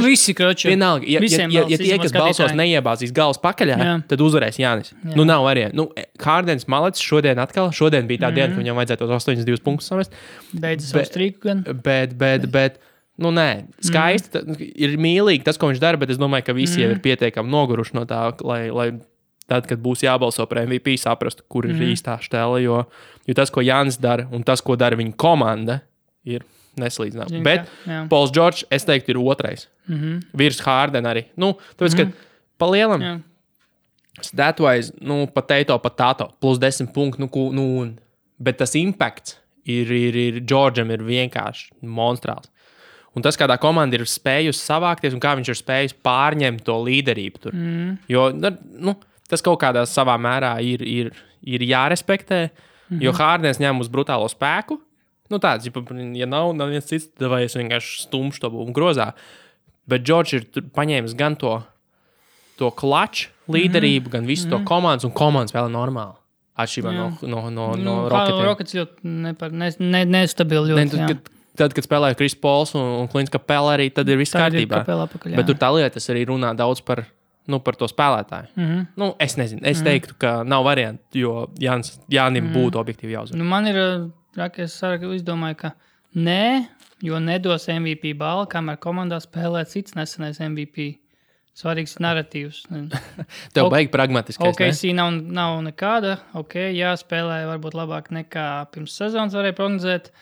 Visi kroči. Vienalga, ja tie, kas balsos, neiebāzīs galvas pakaļā, tad uzvarēs Jānis. Nav variantu. Hardens malets šodien bija tā diena, ka viņam vajadzētu tos 82 punktus samest. Beidz savu strīku gan. Bet, nē, skaisti, ir mīlīgi tas, ko viņš dara, bet es domāju, ka visi jau ir pietiekami noguruši no tā, lai tad, kad būs jābalso par MVP, saprastu, kur ir īstā štēle, jo tas, ko Jānis dara un tas, ko dara viņa komanda, ir neslīdzinām. Bet Pauls George, es teiktu, ir otrais. Virs Harden arī. Tāpēc, ka pa lielam stat-wise, potato, plus 10 punktu, bet tas impacts ir Georgeam ir vienkārši monstrāls. Un tas, kādā komanda ir spējusi savākties un kā viņš ir spējis pārņemt to līderību tur. Jo, tas kaut kādā savā mērā ir jārespektē, jo Hardens ņem uz brutālo spēku. Tāds, ja nav viens cits, tad vai es vienkārši stumšu to un grozā. Bet George ir paņēmis gan to klaču līderību, gan visu to komandas, un komandas vēl normāli. Atšķirībā no Rocketiem. Rockets ļoti nestabili ļoti, Tad, kad spēlēja Chris Pauls un Clint Capela arī, tad ir viss kārtībā. Bet tur tā lieta, tas arī runā daudz par to spēlētāju. Es nezinu, es teiktu, ka nav variantu, jo Jānim būtu objektīvi jāuzvar. Man ir... Es izdomāju, ka nē, jo nedos MVP balvu, kamēr komandā spēlē cits nesenais MVP. Svarīgs narratīvs. Tev baigi pragmatiskais. OKC nav nekāda. Jā, spēlē varbūt labāk nekā pirms sezonas varēja prognozēt.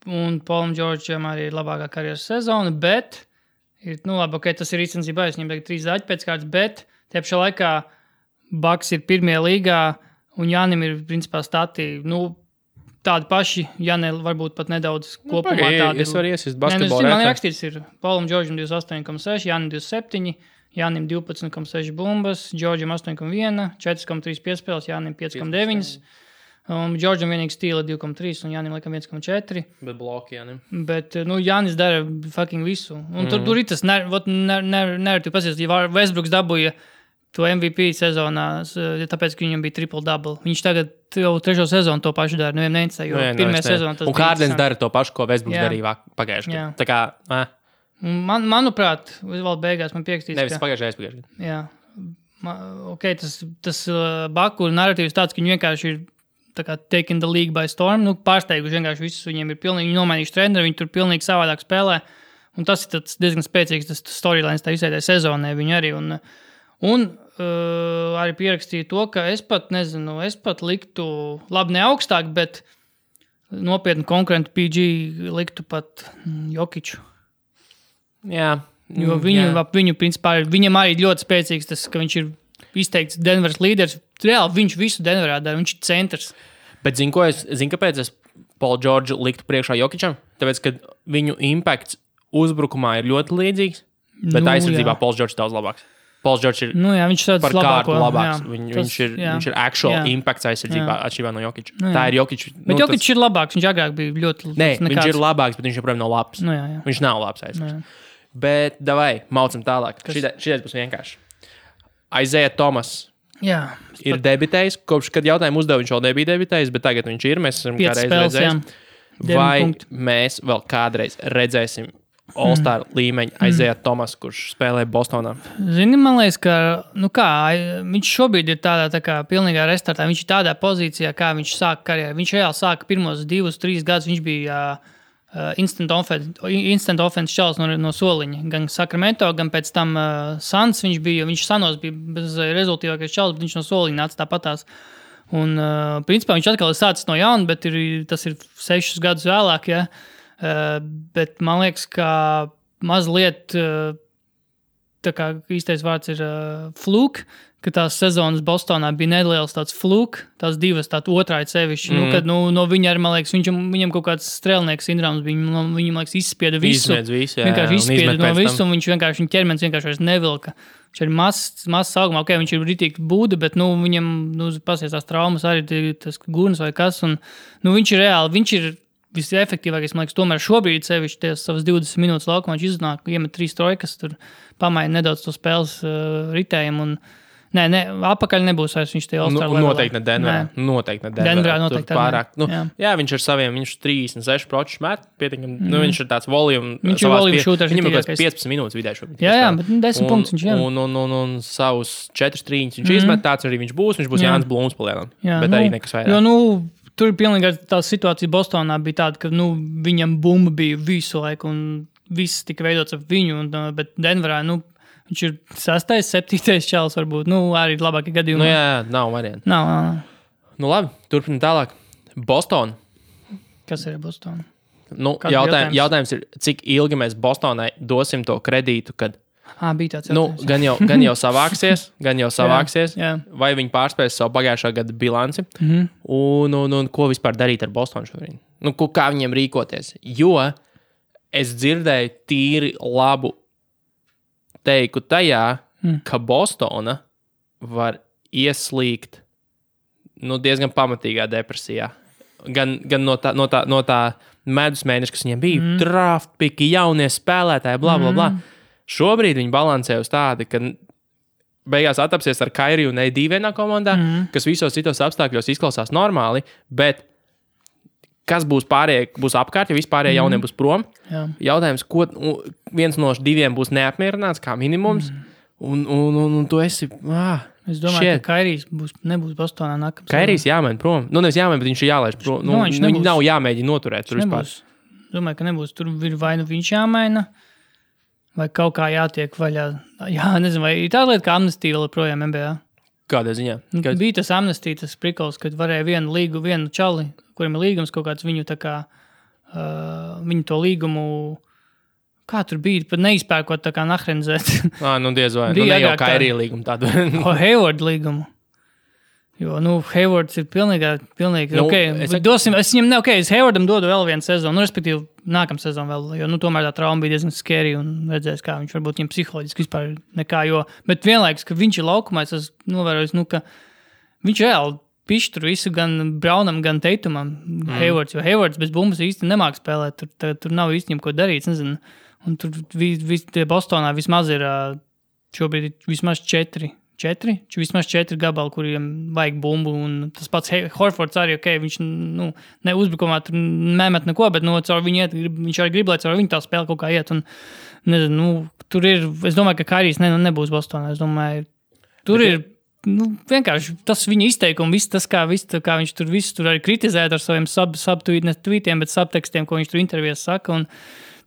Un Paulam Džordžam arī ir labākā karjeras sezona, bet tas ir īstenībā viņam tagad 3 zaļi pēc kārtas, bet tie pašā laikā Bucks ir pirmie līgā un Jānim ir principā stati, tādi paši, ja ne varbūt pat nedaudz kopumā tādi. Es varu iesist basketbolu man rakstīts ir Paulam Džordžam 28,6, Jānim 27, Jānim 12,6 bumbas, Džordžam 8,1, 4,3 piespēles, Jānim 5,9. Džordžam vienīgi stīla 2,3 un Jānim laikam 1,4. Bet bloki Jānim. Bet, Jānis dara fucking visu. Un tur ir tas nereti pasies, ja Westbrooks dabūja to MVP sezonā, tāpēc, ka viņam bija triple-double. Viņš tagad jau 3. sezonu to pašu dara. Nevienam neinteresē, jo pirmajā sezonā tas un Hardens dara to pašu, ko Westbrooks darīja pagājušajā gadā. Tā kā, manuprāt, vēl beigās man piekstīs, nevis pagājušajā. Jā. Tas Baku narratīvs tāds, ka viņi vienkārši ir tā kā taking the league by storm, pārsteiguši vienkārši visus, viņiem ir pilnīgi, viņi nomainījuši treneri, viņi tur pilnīgi savādāk spēlē. Un tas ir diezgan spēcīgs, tas storylines tā visai sezonē viņi arī. Un arī pierakstīju to, ka es pat liktu, labi ne augstāk, bet nopietni konkurentu PG liktu pat Jokiču. Jā. Jo viņu principā, viņam arī ļoti spēcīgs tas, ka viņš ir izteikts Denveras līderis. Reāli viņš visu Denverā dara, viņš ir centrs. Bet kāpēc es Paulu Džordžu liktu priekšā Jokičam? Tāpēc, ka viņu impakts uzbrukumā ir ļoti līdzīgs, bet aizsardzībā Pauls Džordžs daudz labāks. Pauls Džordžs ir par kārtu labāks. Viņš ir actual impacts aizsardzībā atšķirībā no Jokiča. Tā ir Jokiča. Bet Jokičs ir labāks, viņš agrāk bija ļoti nekāds. Viņš ir labāks, bet viņš joprojām nav labs. Viņš nav labs aizsardzības. Bet davai, maucam tālāk. Šitais būs vienkārši. Isaiah Thomas ir debitējis. Kopš, kad jautājumu uzdevu, viņš vēl nebija debitējis, bet tagad viņš ir. Mēs esam kādreiz redzējis. Vai mēs vēl kādreiz redzēsim All-Star līmeņa Isaiah Thomas, kurš spēlē Bostonā? Zini, man liekas, ka viņš šobrīd ir tādā tā kā pilnīgā restartā. Viņš ir tādā pozīcijā, kā viņš sāka karjeru. Viņš reāli sāka pirmos 2-3 gadus. Viņš bija instant offense čalis no soliņa. Gan Sacramento, gan pēc tam Suns viņš Sanos bija bez rezultīvākais čalis, bet viņš no soliņa nāca tāpatās. Un, principā, viņš atkal ir sācis no jauna, bet tas ir 6 gadus vēlāk, ja. Bet man liekas, ka mazliet tā kā īstais vārds ir fluke, ka tās sezonas Bostonā bija neliels tāds fluke, tās divas tāda otrāja sevišķi. Kad no viņa arī, man liekas, viņam kaut kāds strēlnieks sindroms bija, viņam, liekas, izspieda visu. Vienkārši izspieda no visu, un viņa ķermenis vienkārši vairs nevilka. Viņš ir mazs augumā, viņš ir ritīgi būda, bet viņam pasies tās traumas arī tas gurns vai kas, un viņš ir reāli, viņš ir visefektīvākais, man liekas, tomēr šobrīd sevišķi tās savas 20 minūtes laukumā viņš iznāk, iemet 3 trojkas, tur pamaina nedaudz to spēles ritējumu, un apakaļ nebūs vairs viņš tie All-Star levelā. Noteikti ne Denverā. Denverā noteikti. Pārāk, viņš ar saviem, viņš 36% met, pietiekam, viņš ir tāds volume. Viņš ir volume shooter. Viņam kaut kāds 15 minūtes vidēji šobrīd. Jā, bet 10 punktus viņš jau. Un savus 4 trīņus viņš izmet, tāds arī viņš būs Jānis Blūms palielam. Bet arī nekas vairāk. Jo, tur pilnīgi tā situācija Bostonā bija tāda, ka viņam bumba bija visu laiku un viss tika veidots ap viņu, bet Denverā, viņš ir 6., 7. čalis varbūt, arī labākie gadījumi. Jā, nav varianti. Nav. Labi, turpinam tālāk. Boston. Kas ir Boston? Jautājums ir, cik ilgi mēs Bostonai dosim to kredītu, kad bija tāds jautājums. Gan jau savāksies, jā. Vai viņi pārspēs savu pagājušā gada bilanci, un ko vispār darīt ar Bostonu šobrīd? Kā viņiem rīkoties? Jo es dzirdēju tīri labu teiku tajā, ka Bostona var ieslīgt diezgan pamatīgā depresijā. Gan no tā medus mēneša, kas viņiem bija, draft piki, jaunie spēlētāji, bla, bla, bla. Šobrīd viņi balansē uz tādu, ka beigās attapsies ar Kairiju un AD vienā komandā, kas visos citos apstākļos izklausās normāli, bet kas būs pārējie, būs apkārt, ja vispārējie jaunie būs prom. Jā. Jautājums, ko viens no 2 būs neapmierināts kā minimums, un tu esi... Es domāju, ka Kairijs nebūs Bostonā nākamā. Kairijs jāmaina prom. Nevis jāmaina, bet viņš ir jālaiž prom. Viņš nav jāmēģina noturēt tur vispār. Domāju, ka nebūs. Tur ir vai viņš jāmaina, vai kaut kā jātiek vaļā. Jā, nezinu, vai ir tāda lieta kā amnestija vēl projām NBA? Kādā ziņā? Bija tas amnestija, tas prikols, kad varēja vienu čali, kuriem ir līgums kaut kāds viņu tā kā, viņu to līgumu, kā tur bija, pat neizpērkot tā kā nahrenzēt. Diez vai. Ne jau Kairija līgumu tādu. Hayward līgumu. Jo, Haywards ir pilnīgi, es viņam es Haywardam dodu vēl vienu sezonu, respektīvi nākamā sezonu vēl, jo, tomēr tā trauma bija diezgan scary un redzēs, kā viņš varbūt viņam psiholoģiski vispār nekā, bet vienlaikus, ka viņš ir laukumā, es novērojis, ka viņš reāli pišķi tur visu gan Brownam, gan Tatumam, Haywards, jo Haywards bez bumbas īsti nemāk spēlēt, tur nav īsti ko darīt, nezinu, un tur Bostonā vismaz ir šobrīd vismaz 4 gabali, kuriem vajag bumbu, un tas pats Horfords arī, viņš ne uzbrukumā tur nemet neko, bet caur viņu iet, viņš arī grib, lai caur viņu tā spēle kaut kā iet, un nezinu, tur ir, es domāju, ka Kairijs nebūs Bostonā, es domāju, tur ir, vienkārši tas viņa izteikumi, viss tas, kā viņš tur visu tur arī kritizēt ar saviem subtweetiem, bet subtekstiem, ko viņš tur intervijās saka, un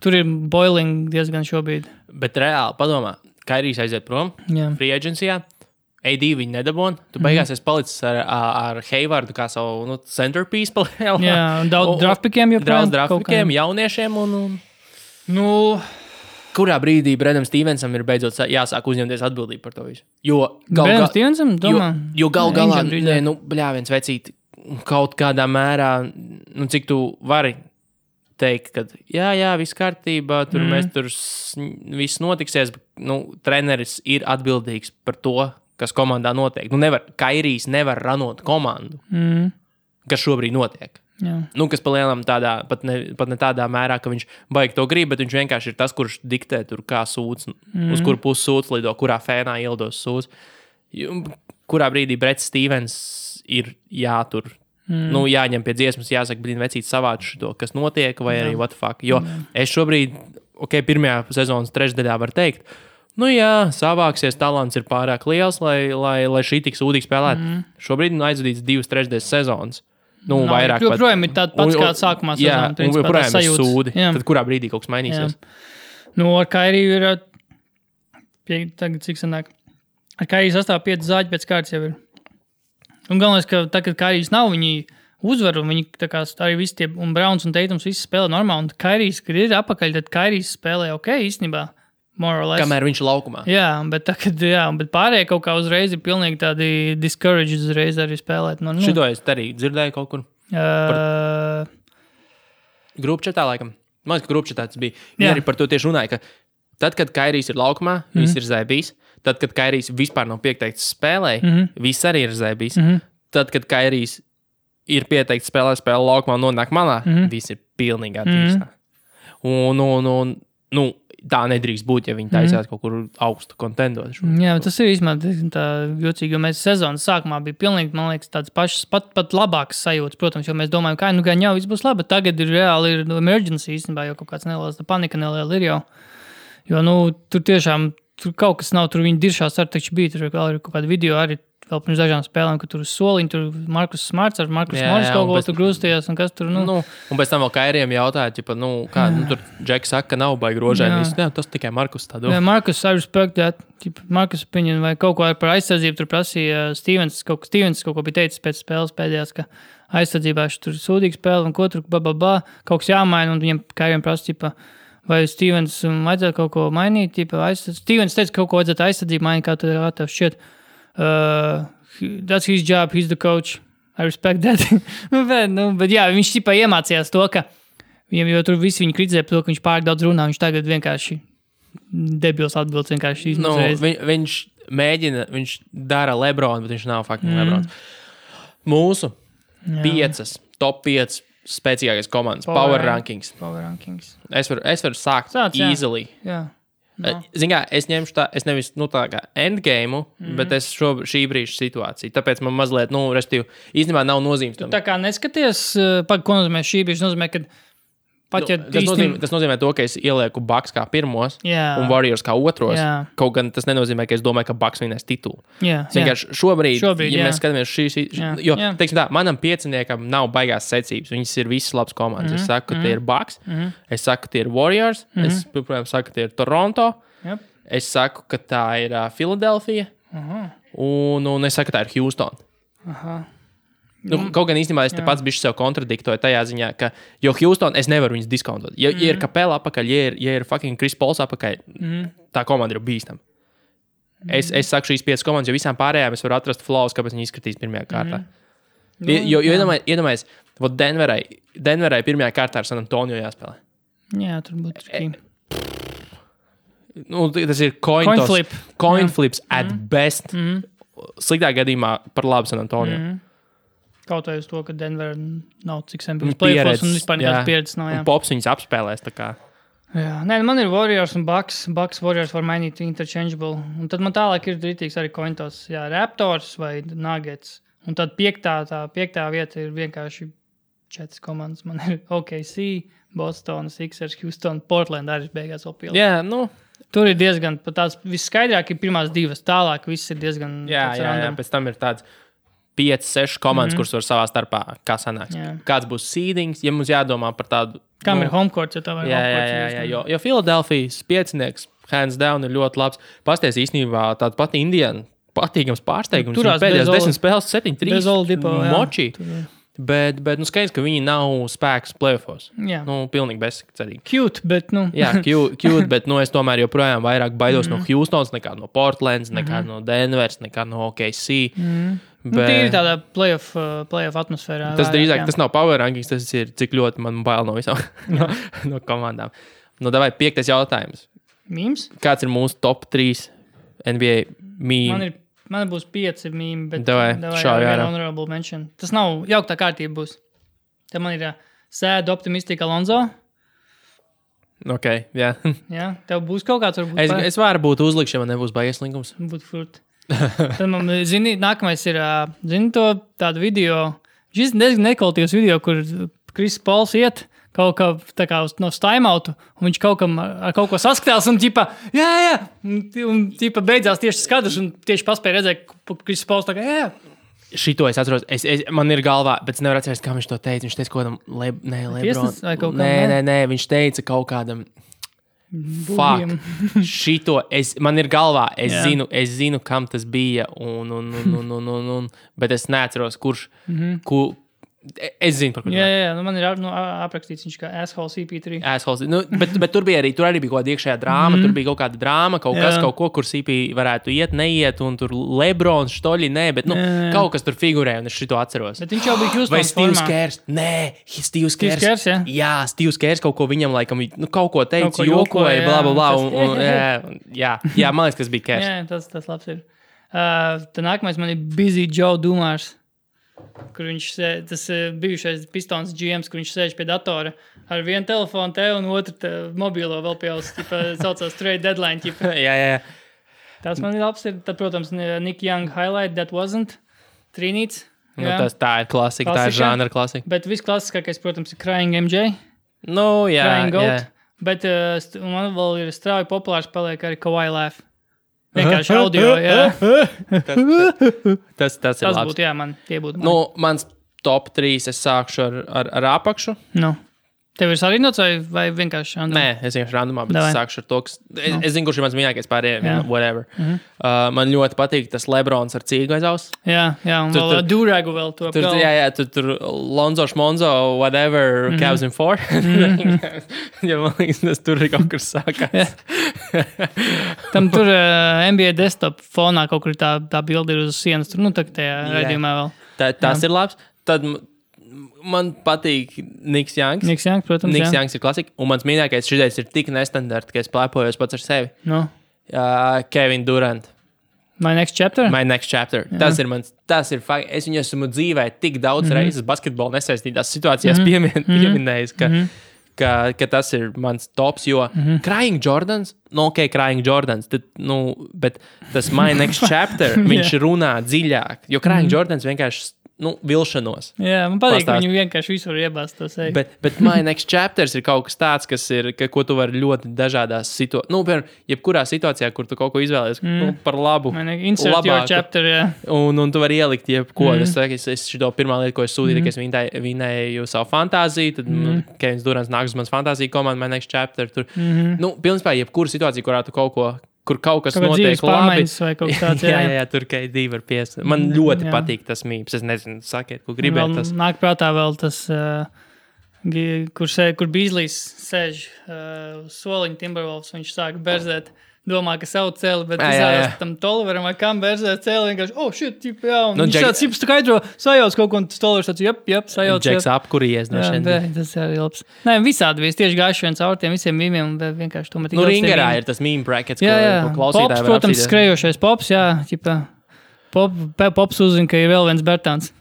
tur ir boiling diezgan šobrīd. Bet reāli, padomā, Kairijs aiziet prom, free agencijā, AD viņi nedabon, tu beigās esi palicis ar Haywardu kā savu centerpiece palēlā. Jā, daudz draftpikiem Daudz draftpikiem, jauniešiem un... Kurā brīdī Bredam Stevensam ir beidzot jāsāk uzņemties atbildību par to visu? Jo Bredam Stevensam, domā? Jo gal galā, viens vecīt, kaut kādā mērā, cik tu vari teikt, ka jā, viss kārtībā, tur mēs tur viss notiksies, bet treneris ir atbildīgs par to, kas komandā notiek. Kairijs nevar ranot komandu, kas šobrīd notiek. Jā. Kas palielam tādā, pat ne tādā mērā, ka viņš baigi to grib, bet viņš vienkārši ir tas, kurš diktē tur kā sūds, uz kuru pusi sūds lido, kurā fēnā ieldos sūds. Kurā brīdī Brets Stevens ir jātur. Jāņem pie dziesmas, jāsaka, vecīt savāc šito, kas notiek, vai arī what the fuck. Jo es šobrīd pirmajā sezonas trešdaļā var teikt, nu jā, savāksies, talants ir pārāk liels, lai šī tik sūdīgi spēlētu. Šobrīd aizvadīts 2/3 sezonas. Nu, vairāk pat. Joprojām ir tāds pats, kāds sākumā sezonā. Jā, un joprojām ir sūdi. Tad kurā brīdī kaut kas mainīsies? Nu, ar Kairiju ir, tagad cik sanāk, ar Kairiju sastāv 5 zāģi pēc kārtas jau ir. Un galvenais, ka tā, kad Kairijs nav, viņi uzvar, un viņi tā kā arī visi tie, un Browns un Teitums visi spēlē normāli, un Kairijs, kad ir apakaļ, tad Kairijs spēlē ok, īstenībā. Kamēr viņš ir laukumā. Jā, bet pārējie kaut kā uzreiz ir pilnīgi tādi discouraged uzreiz arī spēlēt. Šito es arī dzirdēju kaut kur. Grupčetā laikam. Man liekas, ka grupčetā tas bija. Viņi arī par to tieši runāja, ka tad, kad Kairijs ir laukumā, viss ir zēbīs. Tad, kad Kairijs vispār nav pieteikts spēlē, viss arī ir zēbīs. Tad, kad Kairijs ir pieteikts spēlē laukumā un nonāk malā, viss ir pilnīgi attīstā. Un tā nedrīkst būt, ja viņi taisās kaut kur augstu kontendot. Jā, tas ir īstenībā tā jocīgi, jo mēs sezonas sākumā bija pilnīgi, man liekas, tāds pašas, pat labākas sajūtas, protams, jo mēs domājam, ka gan jau viss būs labi, bet tagad ir reāli ir emergency īstenībā, jo kaut kāds neliels panika neliela ir jau. Jo, tur tiešām, tur kaut kas nav, tur viņi diršās ar taču bija, tur vēl ir kaut kāda video arī vēl pirms dažām spēlēm, ka tur uz soliņu, tur Markus Smarts ar Markus Morris kaut ko tur grūstījās, un kas tur, Un pēc tam vēl Kairijam jautāja, tur Džeks saka, ka nav baigi rožēnis. Jā, tas tikai Markus tā domā. Jā, Markus, I respect that. Markus opinion, vai kaut ko par aizsardzību tur prasīja Stevens kaut ko bija teicis pēc spēles pēdējās, ka aizsardzībā tur sūdīgi spēle, un ko tur, kaut kas jāmaina, un viņam Kairijam prasa, vai Stevens vajadzētu kaut ko mainīt, Stevens teica, ka kaut ko vajadzētu aizsardzību mainīt, kā tev šķiet. That's his job, he's the coach. I respect that. bet jā, viņš iemācījās to, ka jo tur visi viņu kritizē par to, ka viņš pārāk daudz runā, viņš tagad vienkārši debils atbildes vienkārši izmazreiz. Viņš mēģina, viņš dara Lebronu, bet viņš nav fucking Lebrons. Mūsu 5, top 5 spēcīgākais komandas, Power Rankings. Es varu sākt easily. Jā. Zin kā, es ņemšu es nevis tā kā endgame, bet es šī brīža situāciju. Tāpēc man mazliet, restīvi, īstenībā nav nozīmes tam. Tu tā kā neskaties, ko nozīmē šī brīža, nozīmē, ka tas nozīmē to, ka es ielieku Bucks kā pirmos un Warriors kā otros. Jā. Kaut gan tas nenozīmē, ka es domāju, ka Bucks vinnēs titulu. Šobrīd, ja mēs skatāmies teiksim tā, manam pieciniekam nav baigās secības. Viņas ir visas labas komandas. Es saku, ka tie ir Bucks. Es saku, ka tie ir Warriors. Es, protams, saku, ka tie ir Toronto. Es saku, ka tā ir Philadelphia. Un es saku, ka tā ir Houston. Kaut gan īstenībā es te pats bišķi sev kontradiktoju tajā ziņā, ka, jo Houston es nevaru viņus diskontot. Ja ir Capela apakaļ, ja ir fucking Chris Pauls apakaļ, tā komanda ir bīstama. Es saku šīs 5 komandas, jo visām pārējām es varu atrast flaws, kāpēc viņi izskatīs pirmajā kārtā. Jo iedomājies, Denverai pirmajā kārtā ar San Antonio jāspēlē. Jā, tur būtu trikīgi. Tas ir coin flips at best. Sliktā gadījumā par labu San Antonio. Kaut vai uz to, ka Denver nav cik sen bijis playoffs un vispār nekādas pieredzes nav. Un Pops viņus apspēlēs tā kā. Jā, man ir Warriors un Bucks. Bucks Warriors var mainīt interchangeable. Un tad man tālāk ir rītīgs arī cointos. Jā, Raptors vai Nuggets. Un tad piektā vieta ir vienkārši 4 komandas. Man ir OKC, Boston, Sixers, Houston, Portland arī beigās vēl pielikt. Jā, Tur ir diezgan, tās visskaidrāk ir pirmās 2. Tālāk viss ir diezgan... Jā, pēc tam ir tāds 5-6 komandas, kuras var savā starpā, kā sanāks. Kāds būs seedings, ja mums jādomā par tādu... Kam ir homecourt, ja tā vai Jā, jo Philadelphijas piecinieks, hands down, ir ļoti labs. Pasties īstenībā tāda pati Indiana, patīkams pārsteigums. Pēdējās 10 spēles 7-3 moči. Bet skaidrs, ka viņi nav spēks playoffs. Pilnīgi bezcerīgi. Cute, bet Jā, cute, bet es tomēr joprojām vairāk baidos no Houstons, nekā no Portlands, nekā no Denvers, nekā no OKC. Bet... Tīri tādā playoff atmosfērā. Tas drīzāk, tas nav power rankings, tas ir cik ļoti man bail no visām no komandām. Davai 5. jautājums. Mīms? Kāds ir mūsu top 3 NBA mīmi? Man būs 5 mīmi, bet honorable mention. Tas nav jauktā kārtība būs. Te man ir Sad Optimistic Alonso. Ok, jā. Jā, tev būs kaut kāds varbūt. Es varu būt uzlikšana, man nebūs baies linkums. Būtu furt. Tad man, nākamais ir, to tādu video, šis diezgan nekvalitīvs video, kur Kris Pols iet kaut kā tā kā no staimautu, un viņš kaut kam ar kaut ko saskatās, un ķipa, jā, un ķipa beidzās tieši skadrs, un tieši paspēja redzēt, ka Kris Pols tā kā, jā. Šito es atceros, man ir galvā, bet es nevaru atcerēties, kā viņš to teica. Viņš teica kaut kādam Lebron. Nē, viņš teica kaut kādam fuck. Šito, man ir galvā, es zinu, kam tas bija, bet es neatceros, kurš, es zinu, par ko. Jā, man ir aprakstīts viņš kā Asshole CP3. Assholes, bet tur arī bija kaut kāda iekšējā drāma, tur bija kaut kāda drāma, kaut ko, kur CP varētu neiet, un tur Lebrons, Štoļi, bet kaut kas tur figurē, un es šito atceros. Bet viņš jau bija Houstons vai Steve's Kers? Nē, Steve's Kers. Jā, Steve's Kers kaut ko viņam laikam, kaut ko teica, jokoja, bla, jā, man liekas, kas bija Kers. Jā, tas labs ir. Tā nākamais man ir Busy Joe Dumars. Kur viņš tas bijušais Pistons GMs, kur viņš sēž pie datora ar vienu telefonu te un otru mobilo vēl pie jūs, saucās Trade Deadline. Jā. Tas man ir labs. Tad, protams, Nick Young highlight, That Wasn't, Trinīts. Tā ir klasika, tā ir žanra klasika. Bet visklasiskākais, protams, ir Crying MJ. Crying Goat. Jā. Bet man vēl ir strauji populārs paliek arī Kawhi Laugh. Vienkārši audio, jā. Tas ir labs. Būtu, jā, tie būtu. Mans top 3 es sākšu ar apakšu. Tev ir sarīnots vai vienkārši randumā? Nē, es vienkārši randumā, bet es sākšu ar to, kas... Es zinu, kurš ir mans mīļākais pārējiem, whatever. Man ļoti patīk tas Lebrons ar cīgu aiz aus. Jā, un vēl Duragu vēl to apgalvu. Jā, tur Lonzo, Šmonzo, whatever, Cavs in 4. Ja man liekas, tur ir kaut kur sākās. Tam tur NBA desktop fonā kaut kur tā bilde ir uz sienas. Tur, tā tajā raidījumā vēl. Tas ir labs. Tad... Man patīk Niks Youngs. Niks Youngs, protams, Niks Youngs ir klasika. Un mans mīļākais šitais ir tik nestandarta, ka es plēpojos pats ar sevi. Kevin Durant. My Next Chapter? My Next Chapter. Tas ir fakt. Es viņu esmu dzīvē tik daudz reizes basketbolu nesaistītās situācijās pieminējis, ka tas ir mans tops, jo Crying Jordans, Crying Jordans, bet tas My Next Chapter, viņš runā dziļāk, jo Crying Jordans vienkārši vilšanos. Jā, man patīk, ka viņu vienkārši visur iebāzt to sevi. Bet My Next Chapters ir kaut kas tāds, ko tu vari ļoti dažādās situācijās. Piemēram, jebkurā situācijā, kur tu kaut ko izvēlies par labu. Insert labāku. Your chapter, jā. Un tu vari ielikt jebko. Es šito pirmā lieta, ko es sūtīju, ka es vinēju savu fantāziju, tad Kevins Durants nāks uz manas fantāziju komandu, My Next Chapter. Tur. Pilnībā jebkura situācija, kurā tu kur kaut kas notiek labi. Jā, tur KD var pies. Man ļoti patīk tas mīms. Es nezinu, sakiet, ko gribēt tas. Nāk prātā vēl tas, kur Beasley's sēž soliņu Timberwolves, viņš sāk berzēt. Domā, ka savu cēli, bet izrādās tam Toliveram vai kam berzēt cēli vienkārši, shit, jā, un viņš tāds cips skaidro, sajauc kaut ko, un Tolivers tāds, sajauc. Džeks apkuries no šeit. Tas arī labs. Nē, visādi vies, tieši gājuši viens caur tiem visiem mīmiem, un vienkārši to man tik Ringerā ir tas mīm brackets, ko klausītāji var apsīdēt. Pops, protams, skrejošais Pops, jā, Pops uzzina, ka ir vēl viens Bertāns.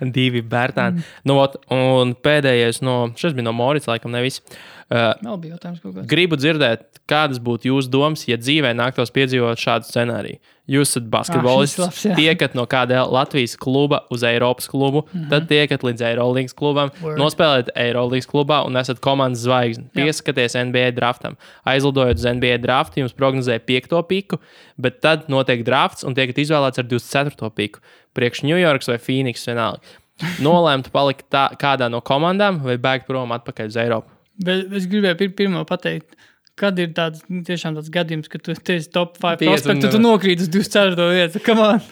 2 Bertāni. Un pēdējais šis bija no Morits, laikam nevis. Vēl bija jautājums kaut kāds. Gribu dzirdēt, kādas būtu jūsu domas, ja dzīvē nāktos piedzīvot šādu scenāriju. Jūs esat basketbolists, tiekat no kāda Latvijas kluba uz Eiropas klubu, tad tiekat līdz Eirolīgas klubam, nospēlēt Eirolīgas klubā un esat komandas zvaigzne. Pieskaties NBA draftam. Aizlidojot uz NBA draftu, jums prognozēja 5. piku, bet tad notiek drafts un tiekat izvēlēts ar 24. piku. Priekš New Yorks vai Phoenix vienalga. Nolēmt palikt kādā no komandām vai bēgt prom atpakaļ uz Eiropu. Bet es gribēju pirmo pateikt, kad ir tiešām tāds gadījums, ka tu esi top 5 prospektu, tu nokrīt uz 24. vietu.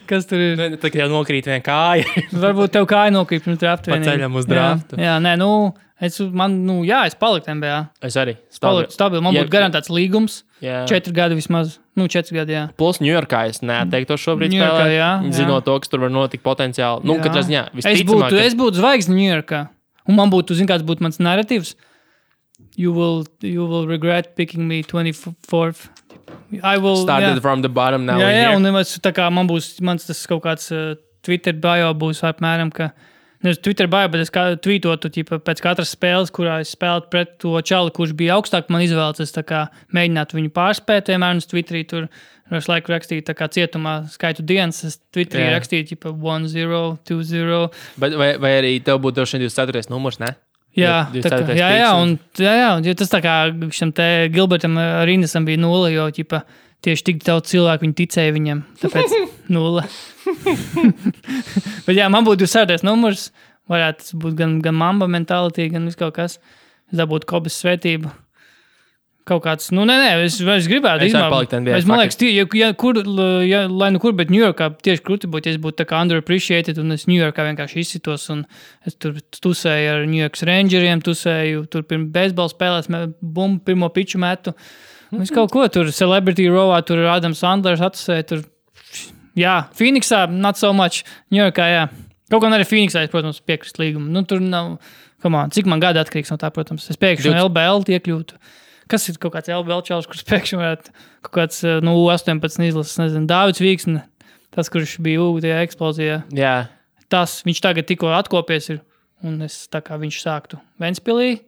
Kas tur ir? Tā kā jau nokrīt viena kāja. Varbūt tev kāja nokrīt pirms draftu. Paceļam uz draftu. Jā, es paliku NBA. Es arī. Stabili. Man būtu garantēts līgums. 4 gadi vismaz. 4 gadi, jā. Plus Ņujorkā es neatteiktu šobrīd spēlēt. Zinot to, kas tur var notikt potenciāli. Katrā ziņā visticamāk. Es būtu zvaigzne Ņujorkā. Un man būtu, kāds būtu mans narratīvs. You will regret picking me 24th. I will started from the bottom now. Jā, un tā kā man būs mans tas kaut kāds Twitter bio būs apmēram, ka Es Twitter bāju, bet es tvītotu pēc katras spēles, kurā es spēlētu pret to čali, kurš bija augstāk man izvēlēts. Es tā kā mēģinātu viņu pārspēt, vienmēr uz Twitterī tur es laiku rakstīju tā kā cietumā skaitu dienas. Es Twitterī rakstīju 1-0, 2-0. Vai arī tev būtu šeit 24. numurs, ne? Jā, jo tas tā kā šim te Gilbertam Rindesam bija 0, jo tieši tik daudz cilvēku viņi ticēja viņam, tāpēc 0. Bet jā, man būtu 24. numurs, varētu būt gan Mamba mentality, gan viss kaut kas. Es dabūtu Kobes svētību. Kaut kāds, es gribētu izmākt. Man liekas, lai nu kur, bet Ņujorkā tieši krūti būtu, ja es būtu tā kā underappreciated, un es Ņujorkā vienkārši izsitos, un es tur tusēju ar Ņujorkas Rangeriem, tusēju tur pirms beisbola spēlēs, bumbu pirmo piču metu. Es kaut ko tur, Celebrity Rowā, tur Adams Sandlers atusēja, tur, jā, Phoenixā, not so much, Ņujorkā, jā. Kaut gan arī Phoenixā, protams, piekrist līgumu. Tur nav, cik man gada atkarīgs no tā, protams. Es pēkšņi no LBL iekļūtu. Kas ir kaut kāds LBL čalis, kurš pēkšņi varētu kaut kāds 18 izlases, nezinu, Dāvids Vīksne, tas, kurš bija tajā eksplozijā. Jā. Tas, viņš tagad tikko atkopies ir, un es tā kā viņš sāktu Ventspilī,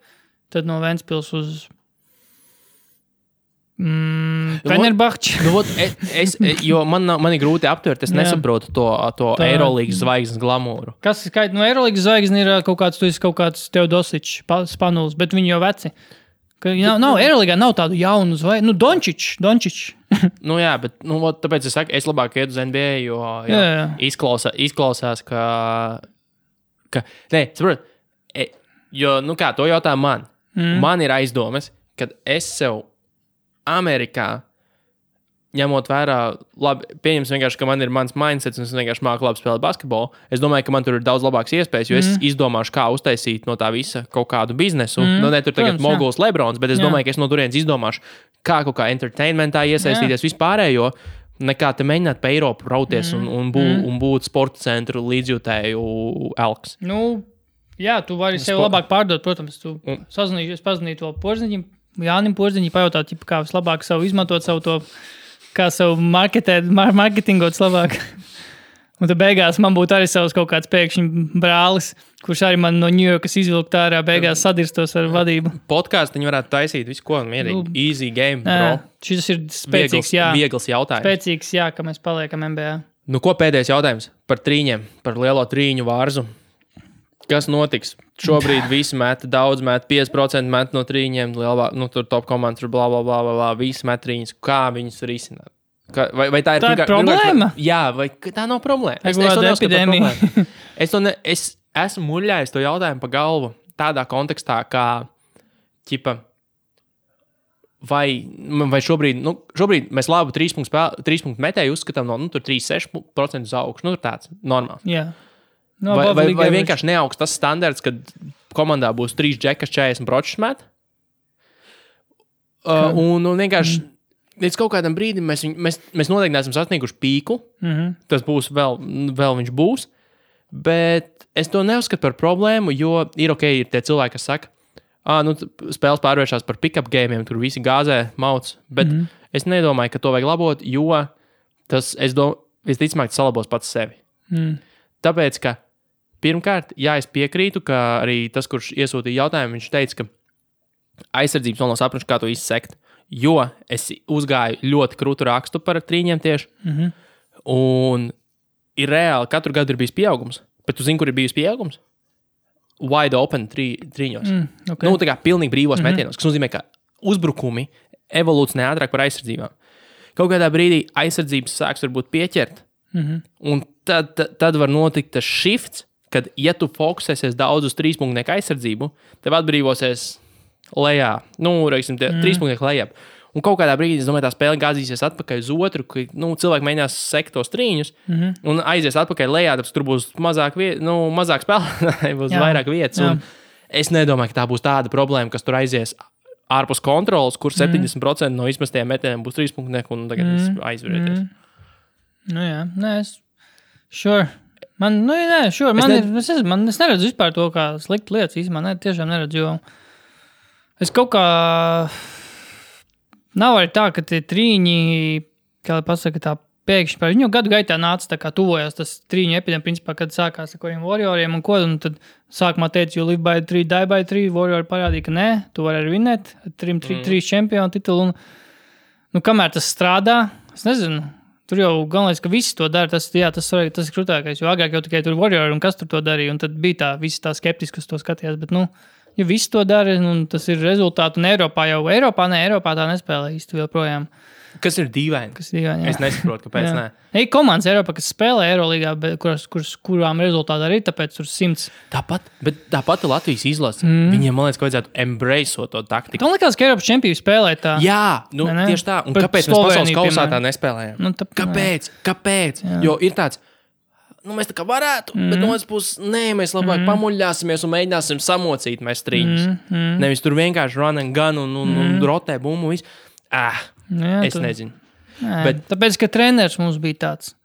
tad no Ventspils uz Fenerbahči. Jo man ir grūti aptvert, es nesaprotu to Eirolīgas zvaigznes glamūru. Kas ir Eirolīgas zvaigznes ir kaut kāds Teodosičs, Spanuls, bet viņi jau veci. Nav Eirolīgā nav tādu jaunu zvaigzni. Dončičs. Jā, bet tāpēc es saku, es labāk iet uz NBA, jo izklausās, ka saprot, jo, to jautā man. Man ir aizdomas, kad es sev Amerikā, ņemot vērā, labi, pieņems vienkārši, ka man ir mans mindsets un es vienkārši māku labi spēlēt basketbolu. Es domāju, ka man tur ir daudz labāks iespējas, jo es izdomāšu, kā uztaisīt no tā visa kaut kādu biznesu. Ne tur tagad moguls Lebrons, bet es domāju, ka es no turienes izdomāšu, kā kaut kā entertainmentā iesaistīties vispārējo, nekā te mēģināt pa Eiropu rauties un būt sporta centru līdzjūtēju elks. Jā, tu vari sev labāk pārdot, protams. Tu pazinīju to Porziņam, Jānim Porziņam, pajautāt, kā vislabāk savu izmantot savu to, kā savu marketingot labāk. Un tad beigās man būtu arī savs kaut kāds pēkšņi brālis, kurš arī man no Ņujorkas izvilkt ārā, beigās sadirstos ar vadību. Podkāstu viņi varētu taisīt visu, ko mierīgi. Easy game, bro. Šis ir spēcīgs, viegls jautājums. Spēcīgs, ka mēs paliekam NBA. Ko pēdējais jautājums par trīņiem, par lielo trīņu vārzu? Kas notiks? Šobrīd visi met, daudz met, 5% met no trīņiem, tur top komandas, bla, visi met trīņus. Kā viņus risināt? Vai tā ir problēma? Jā, vai tā nav problēma? Es esmu muļājis to jautājumu pa galvu tādā kontekstā, kā, vai šobrīd mēs labu 3 punktu metēju uzskatām no, tur 3-6% uz augšu, tur tāds normāls. Jā. Vai vienkārši neaugs tas standarts, kad komandā būs 3 džekas 40 pročus met? Un vienkārši līdz kaut kādam brīdim mēs noteikti neesam sasnieguši pīku. Tas būs vēl viņš būs. Bet es to neuzskatu par problēmu, jo ir tie cilvēki, kas saka, spēles pārvēršās par pick-up gamiem, tur visi gāzē mauc. Bet es nedomāju, ka to vajag labot, jo tas, visticamāk, salabos pats sevi. Tāpēc, ka pirmkārt, es piekrītu, ka arī tas, kurš iesūtīja jautājumu, viņš teica, ka aizsardzības vēl nav saprašu, kā to izsekt, jo es uzgāju ļoti krūtu rakstu par trīņiem tieši, un ir reāli, katru gadu ir bijis pieaugums, bet tu zini, kur ir bijis pieaugums? Wide open trīņos. Tā kā pilnīgi brīvos metienos, kas nozīmē, ka uzbrukumi evolūcionē ātrāk par aizsardzībām. Kaut kādā brīdī aizsardzības sāks varbūt pieķert, un tad var notikt tas shifts, kad, ja tu fokusēsies daudz uz 3 punktu aizsardzību, tev atbrīvosies lejā, 3 punktu lejā. Un kaut kādā brīdī, es domāju, tā spēle gāzīsies atpakaļ uz otru, ka cilvēki mēģinās sekt tos trīņus un aizies atpakaļ lejā, tāpēc tur būs mazāk spēlētāji, būs vairāk vietas. Un es nedomāju, ka tā būs tāda problēma, kas tur aizies ārpus kontrolas, kur 70% no izmestajiem metieniem būs 3 punktu un tagad aizvarēties. Sure. Man neredzu vispār to, kā sliktu lietas īstenībā. Tiešām neredzu, jo es kaut kā nav arī tā, ka tie trīņi, kā lai pasaka, tā pēkšņi par viņu gadu gaitā nāca tā kā tuvojās tas trīņu epidēmija, principā, kad sākās ar kādiem Warrioriem un tad sākumā teica, you live by 3, die by 3, Warrior parādīja, ka nē, tu vari arī vinēt, 3 čempionu titulu, un kamēr tas strādā, es nezinu, tur jau galvenais, ka visi to dara, tas ir krutākais, jo agrāk jau tikai tur Warrior un kas tur to darīja, un tad bija visi tā skeptiski, kas to skatījās, bet, ja visi to dara, un tas ir rezultāti, un Eiropā tā nespēlē īsti joprojām. Kas ir dīvaini? Es nesaprotu, kāpēc nē. Ir komandas Eiropā, kas spēlē Eirolīgā, kurām rezultāti arī tāpēc tur 100. Tāpat Latvijas izlase. Viņiem, man liekas, ka vajadzētu embraceot to taktiku. Man liekas, ka Eiropas čempioni spēlē tā. Jā, tieši tā. Un kāpēc mēs pasaules kausā tā nespēlējam? Kāpēc? Jā. Jo ir tāds, mēs tā kā varētu, bet no otras puses, mēs labāk pamuļļāsimies un mēģināsim samocīt mēs trīņus. Nevis tur vienkārši run and gun un rotē bumbu visu. Es nezinu. Bet... Tāpēc, ka treneris mums bija tāds.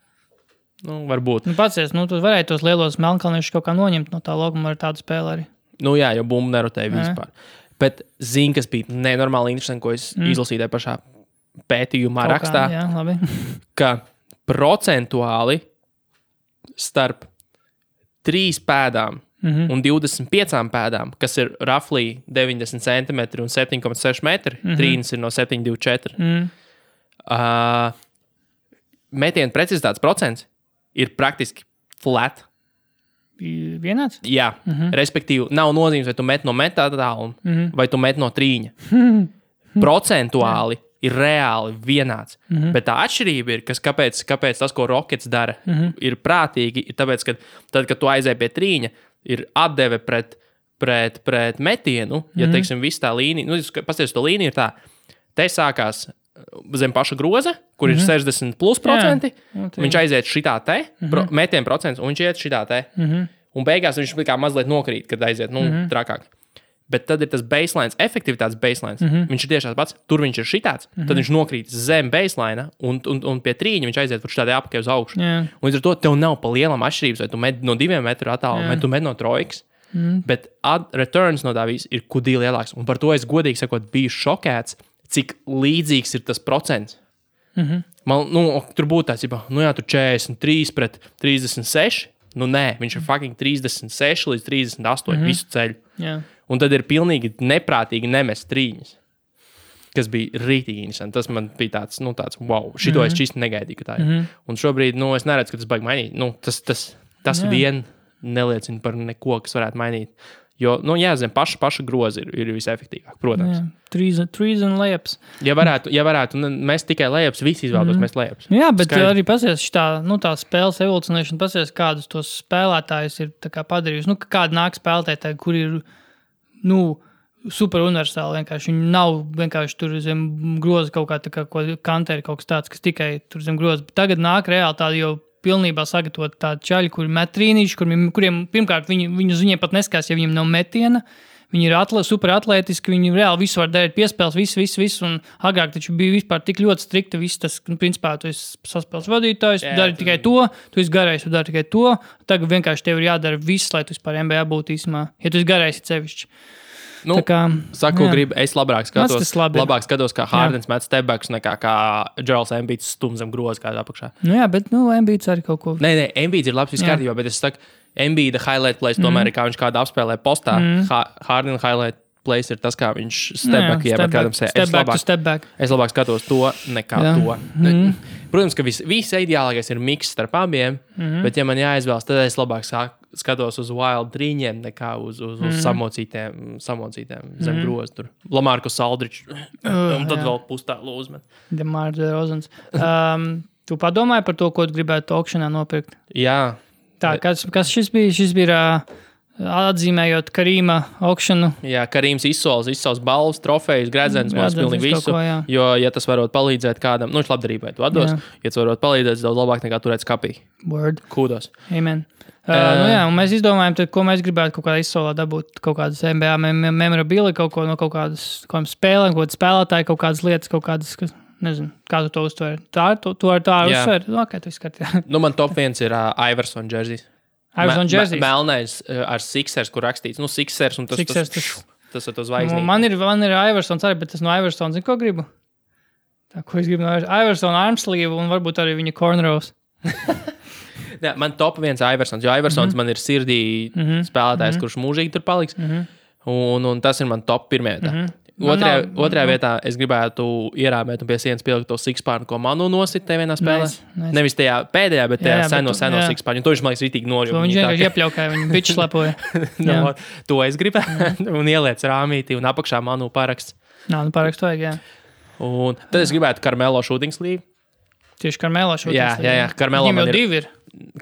Varbūt. Pacies, tu varēji tos lielos melnkalniešus kaut kā noņemt no tā loguma ar tādu spēli arī. Jā, jo bumbu nerotēja vispār. Bet zini, kas bija nenormāli interesanti, ko es izlasīju tajā pašā pētījumā rakstā, ka procentuāli starp 3 pēdām un 25 pēdām, kas ir roughly 90 cm un 7,6 metri, trīnis ir no 7,24. Metienu precizitātes procents ir praktiski flat. Vienāds? Jā, respektīvi, nav nozīmes, vai tu met no metā tāluma, vai tu met no trīņa. Procentuāli ir reāli vienāds. Bet tā atšķirība ir, kāpēc tas, ko Rockets dara, ir prātīgi, ir tāpēc, ka tad, kad tu aizēji pie trīņa, ir atdeve pret metienu, ja, teiksim, viss tā līnija, pasties, to līnija ir tā, te sākās zem paša groza, kur ir 60+%, viņš aiziet šitā te, metienu procents, un viņš iet šitā te. Un beigās viņš kā mazliet nokrīt, kad aiziet, trakāk. Bet tad ir tas baseline, efektivitātes baseline. Viņš ir tieši tāds pats, tur viņš ir šitāds, tad viņš nokrīt zem baseline, un pie trīņa viņš aiziet par šitādē apakaļ uz augšu. Un līdz ar to tev nav pa lielam atšķirības, vai tu met no 2 metru attālumu, vai tu met no trojkas. Bet returns no tā viss ir kudī lielāks. Un par to es godīgi sakot biju šokēts, cik līdzīgs ir tas procents. Man, tur būtu tāds, tur 43 pret 36, nē, viņš ir fucking 36 līdz 38 visu ceļu. Un tad ir pilnīgi neprātīgi nemest trīņas, kas bija rītīgi interesanti. Tas man bija tāds wow, šito es čisti negaidīju, ka tā ir. Un šobrīd, es neredzu, ka tas baigi mainīt. Tas vien neliecina par neko, kas varētu mainīt. Jo, zem paša groza ir visefektīvāk, protams. Trees un layups. Ja varētu mest tikai layups, visi izvēlētos mest layups. Jā, bet arī pasies tā spēles evolucionēšana, pasies, kādus tos spēlētājus ir tā kā padarījusi. Kādi nāk spēlētāji, kur ir, super universāli vienkārši. Viņi nav vienkārši tur zem groza kaut kā tā kā kanteri, kaut kas tāds, kas tikai tur zem groza. Bet tagad nāk reāli tādi jau pilnībā sagatavot tādu čaļu, kuri met trīnīši, kuriem pirmkārt viņiem pat neskās, ja viņiem nav metiena. Viņi ir super atlētiski, viņi reāli visu var darīt, piespēles, visu. Un agrāk taču bija vispār tik ļoti strikta viss tas, principā, tu esi saspēles vadītājs, tu dari tikai to, tu esi garais, tu dari tikai to. Tagad vienkārši tev ir jādara viss, lai tu vispār NBA būtu īsumā, ja tu esi garais sevišķi. Es labāk skatos, kā Hardens met stepbacks, nekā kā Joels Embiids stum zem groza kādā apakšā. Bet Embiids arī kaut ko. Nē, Embiids ir labs viskārtībā, bet es saku, Embiida highlight plays tomēr ir, kā viņš kādu apspēlē postā. Harden highlight plays ir tas, kā viņš stepback jeb kādam sē. Es labāk skatos to, nekā to. Protams, ka viss ideālākais ir miks starp abiem, bet ja man jāizvēlas, tad es labāk skatos uz wild trīņiem, nekā uz samocītiem zem groza tur. Lamarcus Aldridge, un tad vēl pustālu uzmet. DeMar DeRozans. Tu padomāji par to, ko tu gribētu aukšanā nopirkt? Jā. Tā, kas šis bija? Šis bija atzīmējot Karīma aukšanu. Jā, Karīms izsauc balvas, trofejas, gredzens, mums pilnīgi visu. Jo, ja tas varot palīdzēt kādam, viņš labdarībai to atdos, ja tas varot palīdzēt, daudz labāk nekā turēt skapī. Word. Kūdos. Amen. Un mēs izdomājam, tad, ko mēs gribētu kaut kādā izsolā dabūt, kaut kādas NBA memorabilia, kaut ko no kaut kādas spēlēm, kaut kādas spēlētāji, kaut kādas lietas, kaut kādas, kas, nezinu, kā tu to uztver. Tā uztver? Okay, tu izskati. Man top 1 ir Iverson jerseys. Melnais ar Sixers, kur rakstīts. Sixers un tas ar to zvaigznīti. Man ir Iversons arī, bet tas no Iversons, zinu, ko gribu? Tā, ko es gribu no Iversona armsleeve un varbūt arī viņa cornrows. Jā, man top viens Iversons, jo Iversons man ir sirdī spēlētājs, kurš mūžīgi tur paliks. Un tas ir man top pirmajā vietā. Otrajā vietā es gribētu ierāmēt un pie sienas pielikt to sixpārnu, ko Manu nosit te vienā spēlē. Nice. Nevis tajā pēdējā, bet tajā seno sixpārnu. To viņš, man liekas, ritīgi nožūg. Viņš vienkārši iepļaukāja, viņa biču slepoja. To es gribētu. Un ieliec rāmītī un apakšā Manu paraksts. Parakstu vajag, jā. Un tad es gribētu Carmelo shooting sleeve. Tieši Carmelo shooting sleeve. Jā. Carmelo man ir. Divi ir.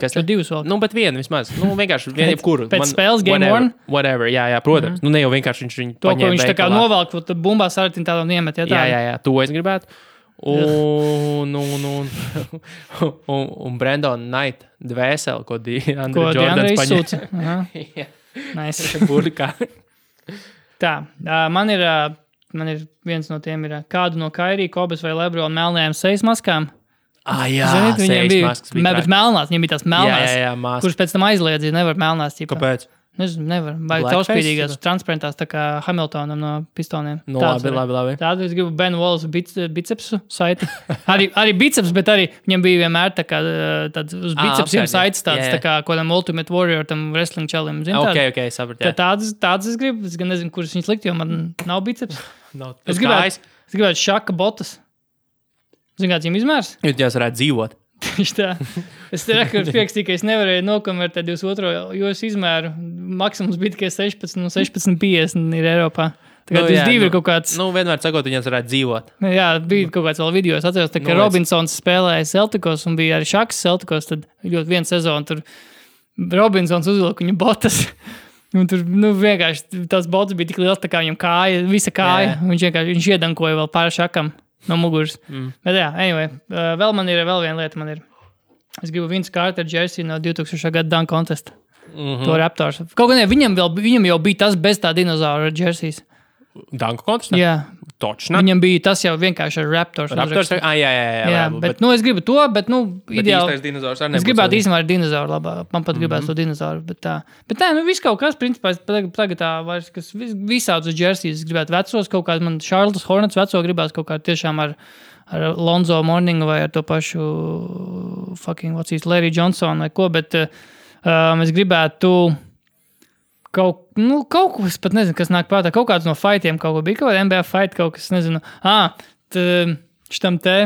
Kas tad? Divas vēl. Bet viena vismaz. Vienkārši viena jebkuru. Pēc spēles game one? Whatever, jā, protams. Ne jau vienkārši viņš viņu to, ko viņš tā kā novelk, tad bumbās ar tādu niemet. Jā, to es gribētu. Un Brandon Knight dvēseli, ko Andre Jordans izsūca. Nice. Burkā. Tā, man ir viens no tiem ir kādu no Kairī, Kobes vai Lebrona melnajām sejas maskām. Jā, ziniet, viņiem bija melnās, viņiem bija tās melnās, jā, kuras pēc tam aizliedzīja, nevar melnās. Ķipā. Kāpēc? Nezinu, nevar. Vai caurspīdīgās, transparentās, tā kā Hamiltonam no pistoniem. No, labi. Tādu es gribu Ben Wallace bicepsu saiti. Arī biceps, bet arī viņam bija vienmēr tā kā tāds uz bicepsiem saites tāds, tā kā kodam Ultimate Warrior, tam wrestling čalim. Ok, sapratu. Tādas es gribu, es gan nezinu, kuras viņas likt, jo man nav biceps. Es gribētu šaka botas. Zini, kāds viņam izmērs? Jūs varētu dzīvot. Tieši tā. Es pierakstīju, ka es nevarēju nokonvertēt 22. izmēru. Maksimums bija tikai 16 un 16,50 ir Eiropā. Tagad ir kaut kāds... Vienmēr sakot, viņas varētu dzīvot. Jā, bija kaut kāds vēl video. Es atceros, ka Robinsons spēlēja Celticos un bija arī Šaks Celticos. Tad ļoti vienu sezonu tur Robinsons uzvilka viņu botas. Un tur vienkārši tās botas bija tik liels, tā kā viņam kāja, visa kāja. Viņš iedankoja vēl pāri Šakam. No muguras. Bet jā, anyway, vēl viena lieta man ir. Es gribu Vince Carter jersey no 2000. gada Dunk Contest. To Raptors. Kaut gan viņam jau bija tas bez tā dinozaura jerseys. Dunk Contest? Jā. Točno. Viņam bija tas jau vienkārši ar Raptors. Jā. Bet es gribu to, bet ideāli. Es gribētu īstenībā ar dinozauru labāk. Man pat gribētu to dinozauru, bet tā. Bet tā, viss kaut kas, principā, tagad tā vairs, kas visādus jerseys gribētu vecos, kaut kāds man Charlotte Hornets veco gribētu kaut kā tiešām ar Lonzo Mourningu vai ar to pašu Larry Johnson vai ko, bet es gribētu kaut ko, es pat nezinu, kas nāk prātā, kaut kāds no fightiem, kaut ko bija, kaut kāda NBA fight, kaut kas, nezinu. Šitam te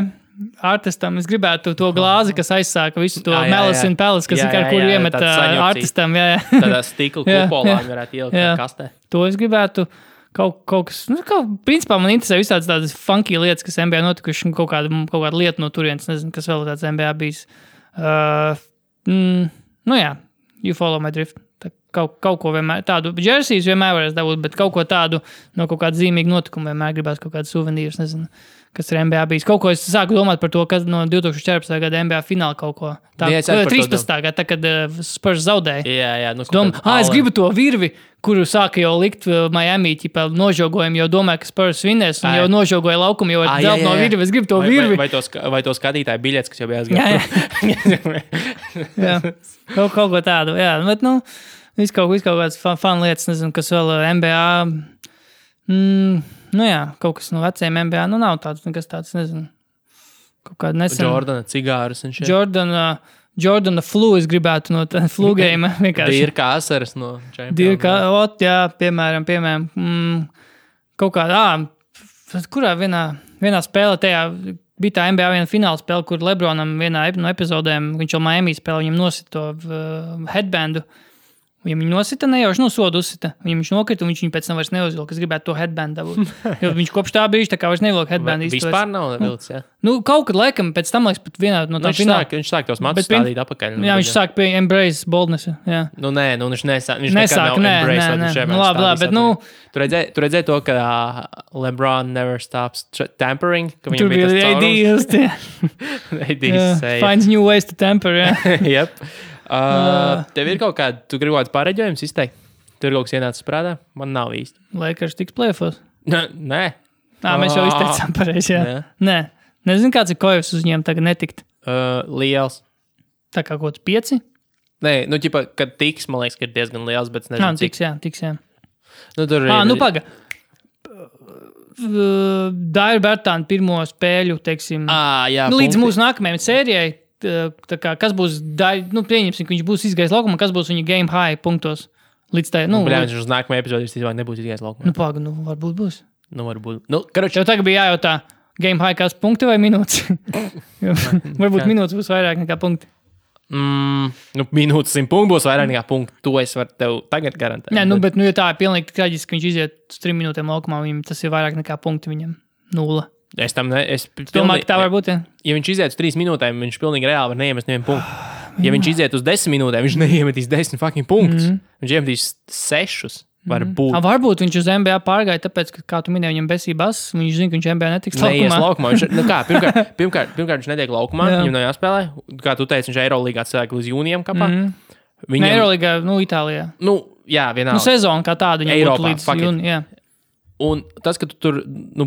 artistam, es gribētu to glāzi, kas aizsāka visu to Malice in Palace, kas kur iemet artistam. Tādā stikla kupolā viņi varētu ielikt kastē. To es gribētu kaut kas, principā man interesē visādas tādas funky lietas, kas NBA notikuši, kaut kāda lieta no turienes, nezinu, kas vēl tāds NBA bijis. You follow my drift. Kaut ko vienmēr, tādu jerseys vienmēr varēs dabūt, bet kaut ko tādu no kaut kāda zīmīga notikuma vienmēr gribās kaut kādu suvenīrus, nezinu, kas ir NBA bijis. Kaut ko es sāku domāt par to, kas no 2014. gada NBA fināla kaut ko. Tā, 13. gada, tā, kad Spurs zaudēja. Jā. Es gribu to virvi, kuru sāka jau likt Miami, ķipā nožogojumu, jo domāju, ka Spurs vinnēs, un jau nožogoja laukumu, jau dzelp no virvi. Es gribu to virvi. Vai to skatītāju biļets, kas jau bija aizgāja. Jā. Kaut ko tādu, jā. Bet, viss kaut kāds fun lietas, nezinu, kas vēl NBA. Kaut kas no veciem NBA. Nav tāds, nekas tāds, nezinu. Kaut kāda nesen. Jordana cigārus un šeit. Jordana flu es gribētu no tā flu game. Dirka asaras no Champions. Jā, piemēram. Kaut kādā, kurā vienā spēlē tajā bija tā NBA viena fināla spēle, kur Lebronam vienā no epizodēm, viņš jau Miami spēlē, viņam nosita to headbandu. Viņam viņu nosita, nejauši sodu uzsita. Viņam viņš nokrita, un viņš viņu pēc tam vairs neuzvilka. Es gribētu to headbandu dabūt. Jo viņš kopš tā brīža tā kā vairs nevilka headbandu. Vispār nav vilcis, jā? Kaut kad laikam, pēc tam, pat vienā no tā fināla. Viņš sāk tos matus stādīt apakaļ. Jā, viņš sāk pie embrace boldness. Jā. Viņš nesāk. Labi, bet Tu redzēji to, ka LeBron never stops tampering? Tur bija ADs. Finds new ways to tamper, jā. Yep. Tev ir kaut kāda, tu gribi kaut kāds pareģojums izteikt? Tur ir kaut kas ienācis prātā? Man nav īsti. Lakers tiks play-offos? Nē. Mēs jau izteicām pareizi, jā. Nē. Nezinu, kāds ir Koevs uz viņiem tagad netikt. Liels. Tā kā kaut kāds 5? Nē, kad tiks, man liekas, ka ir diezgan liels, bet nezinu, cik. Tiks, jā. Tur paga. Dairu Bertānu pirmo spēļu, teiksim, jā, līdz mūsu nākamajai sērijai, kas būs, pieņemsim, ka viņš būs izgājis laukumā, kas būs viņa game high punktos līdz tai, viņš uz nākamajai epizodē nebūs izgājis laukumā. Varbūt būs. Varbūt. Tev tagad bija jājautā, game high kāds punkti vai minūtes? Varbūt minūtes būs vairāk nekā punkti. Minūtes 100 punktu būs vairāk nekā punktu. To es varu tev tagad garantēt. Nē, bet ja tā ir pilnīgi traģiski, ka viņš iziet uz 3 minūtēm laukumā, viņam tas ir vairāk nekā punkti viņam. 0. Es domāju, ka tā var būt, ja? Ja viņš iziet uz 3 minūtēm, viņš pilnīgi reāli var neiemest nevienu punktu. Ja viņš iziet uz 10 minūtēm, viņš neiemetīs 10 fucking punktus. Viņš iemetīs 6. Varbūt viņš uz NBA pārgāja, tāpēc, ka, kā tu minēji, viņam besībās, viņš zina, ka viņš NBA netiks laukumā. Pirmkārt, viņš netiek laukumā, viņam nav jāspēlē. Kā tu teici, viņš Eirolīgā cilvēku līdz jūnijam kapā. Eirolīgā, Itālijā. Jā, vienalga. Sezona kā tāda, viņam Eiropā, būtu līdz jūnijam. Un tas, ka tu tur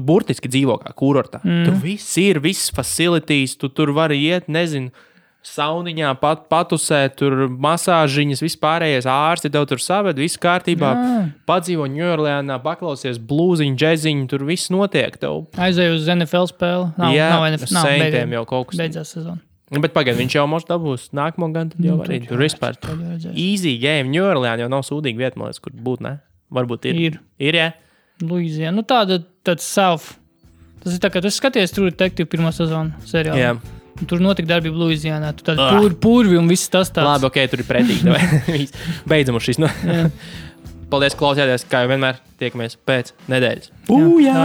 burtiski dzīvo kā kurortā, tur viss ir, viss facilities, tu tur vari iet, nezinu, sauniņā, patusēt, tur masāžiņas, vispārējais ārsti tev tur saved, viss kārtībā, padzīvo Ņujorlēnā, paklausies blūziņu, džeziņu, tur viss notiek tev. Aizēju uz NFL spēli. Nav NFL. Saintiem jau kaut kas. Beidzās sezona. Bet pagaid, viņš jau mums dabūs nākamo gan, tad jau arī tur vispār. Easy game, Ņujorlēna jau nav sūdīga vieta, man liekas, kur būt, ne? Varbūt ir. Ir, jā? Luizijā. Tāds self. Tas ir tā, ka tu skaties True Detective pirmo sezonu seriālu. Jā. Tur notika darbība Luizijānā. Tur tādi purvi un viss tas tāds. Labi, tur ir pretīgi. Beidzam uz šīs. Paldies, klausījāties. Kā jau vienmēr, tiekamies pēc nedēļas. Jā.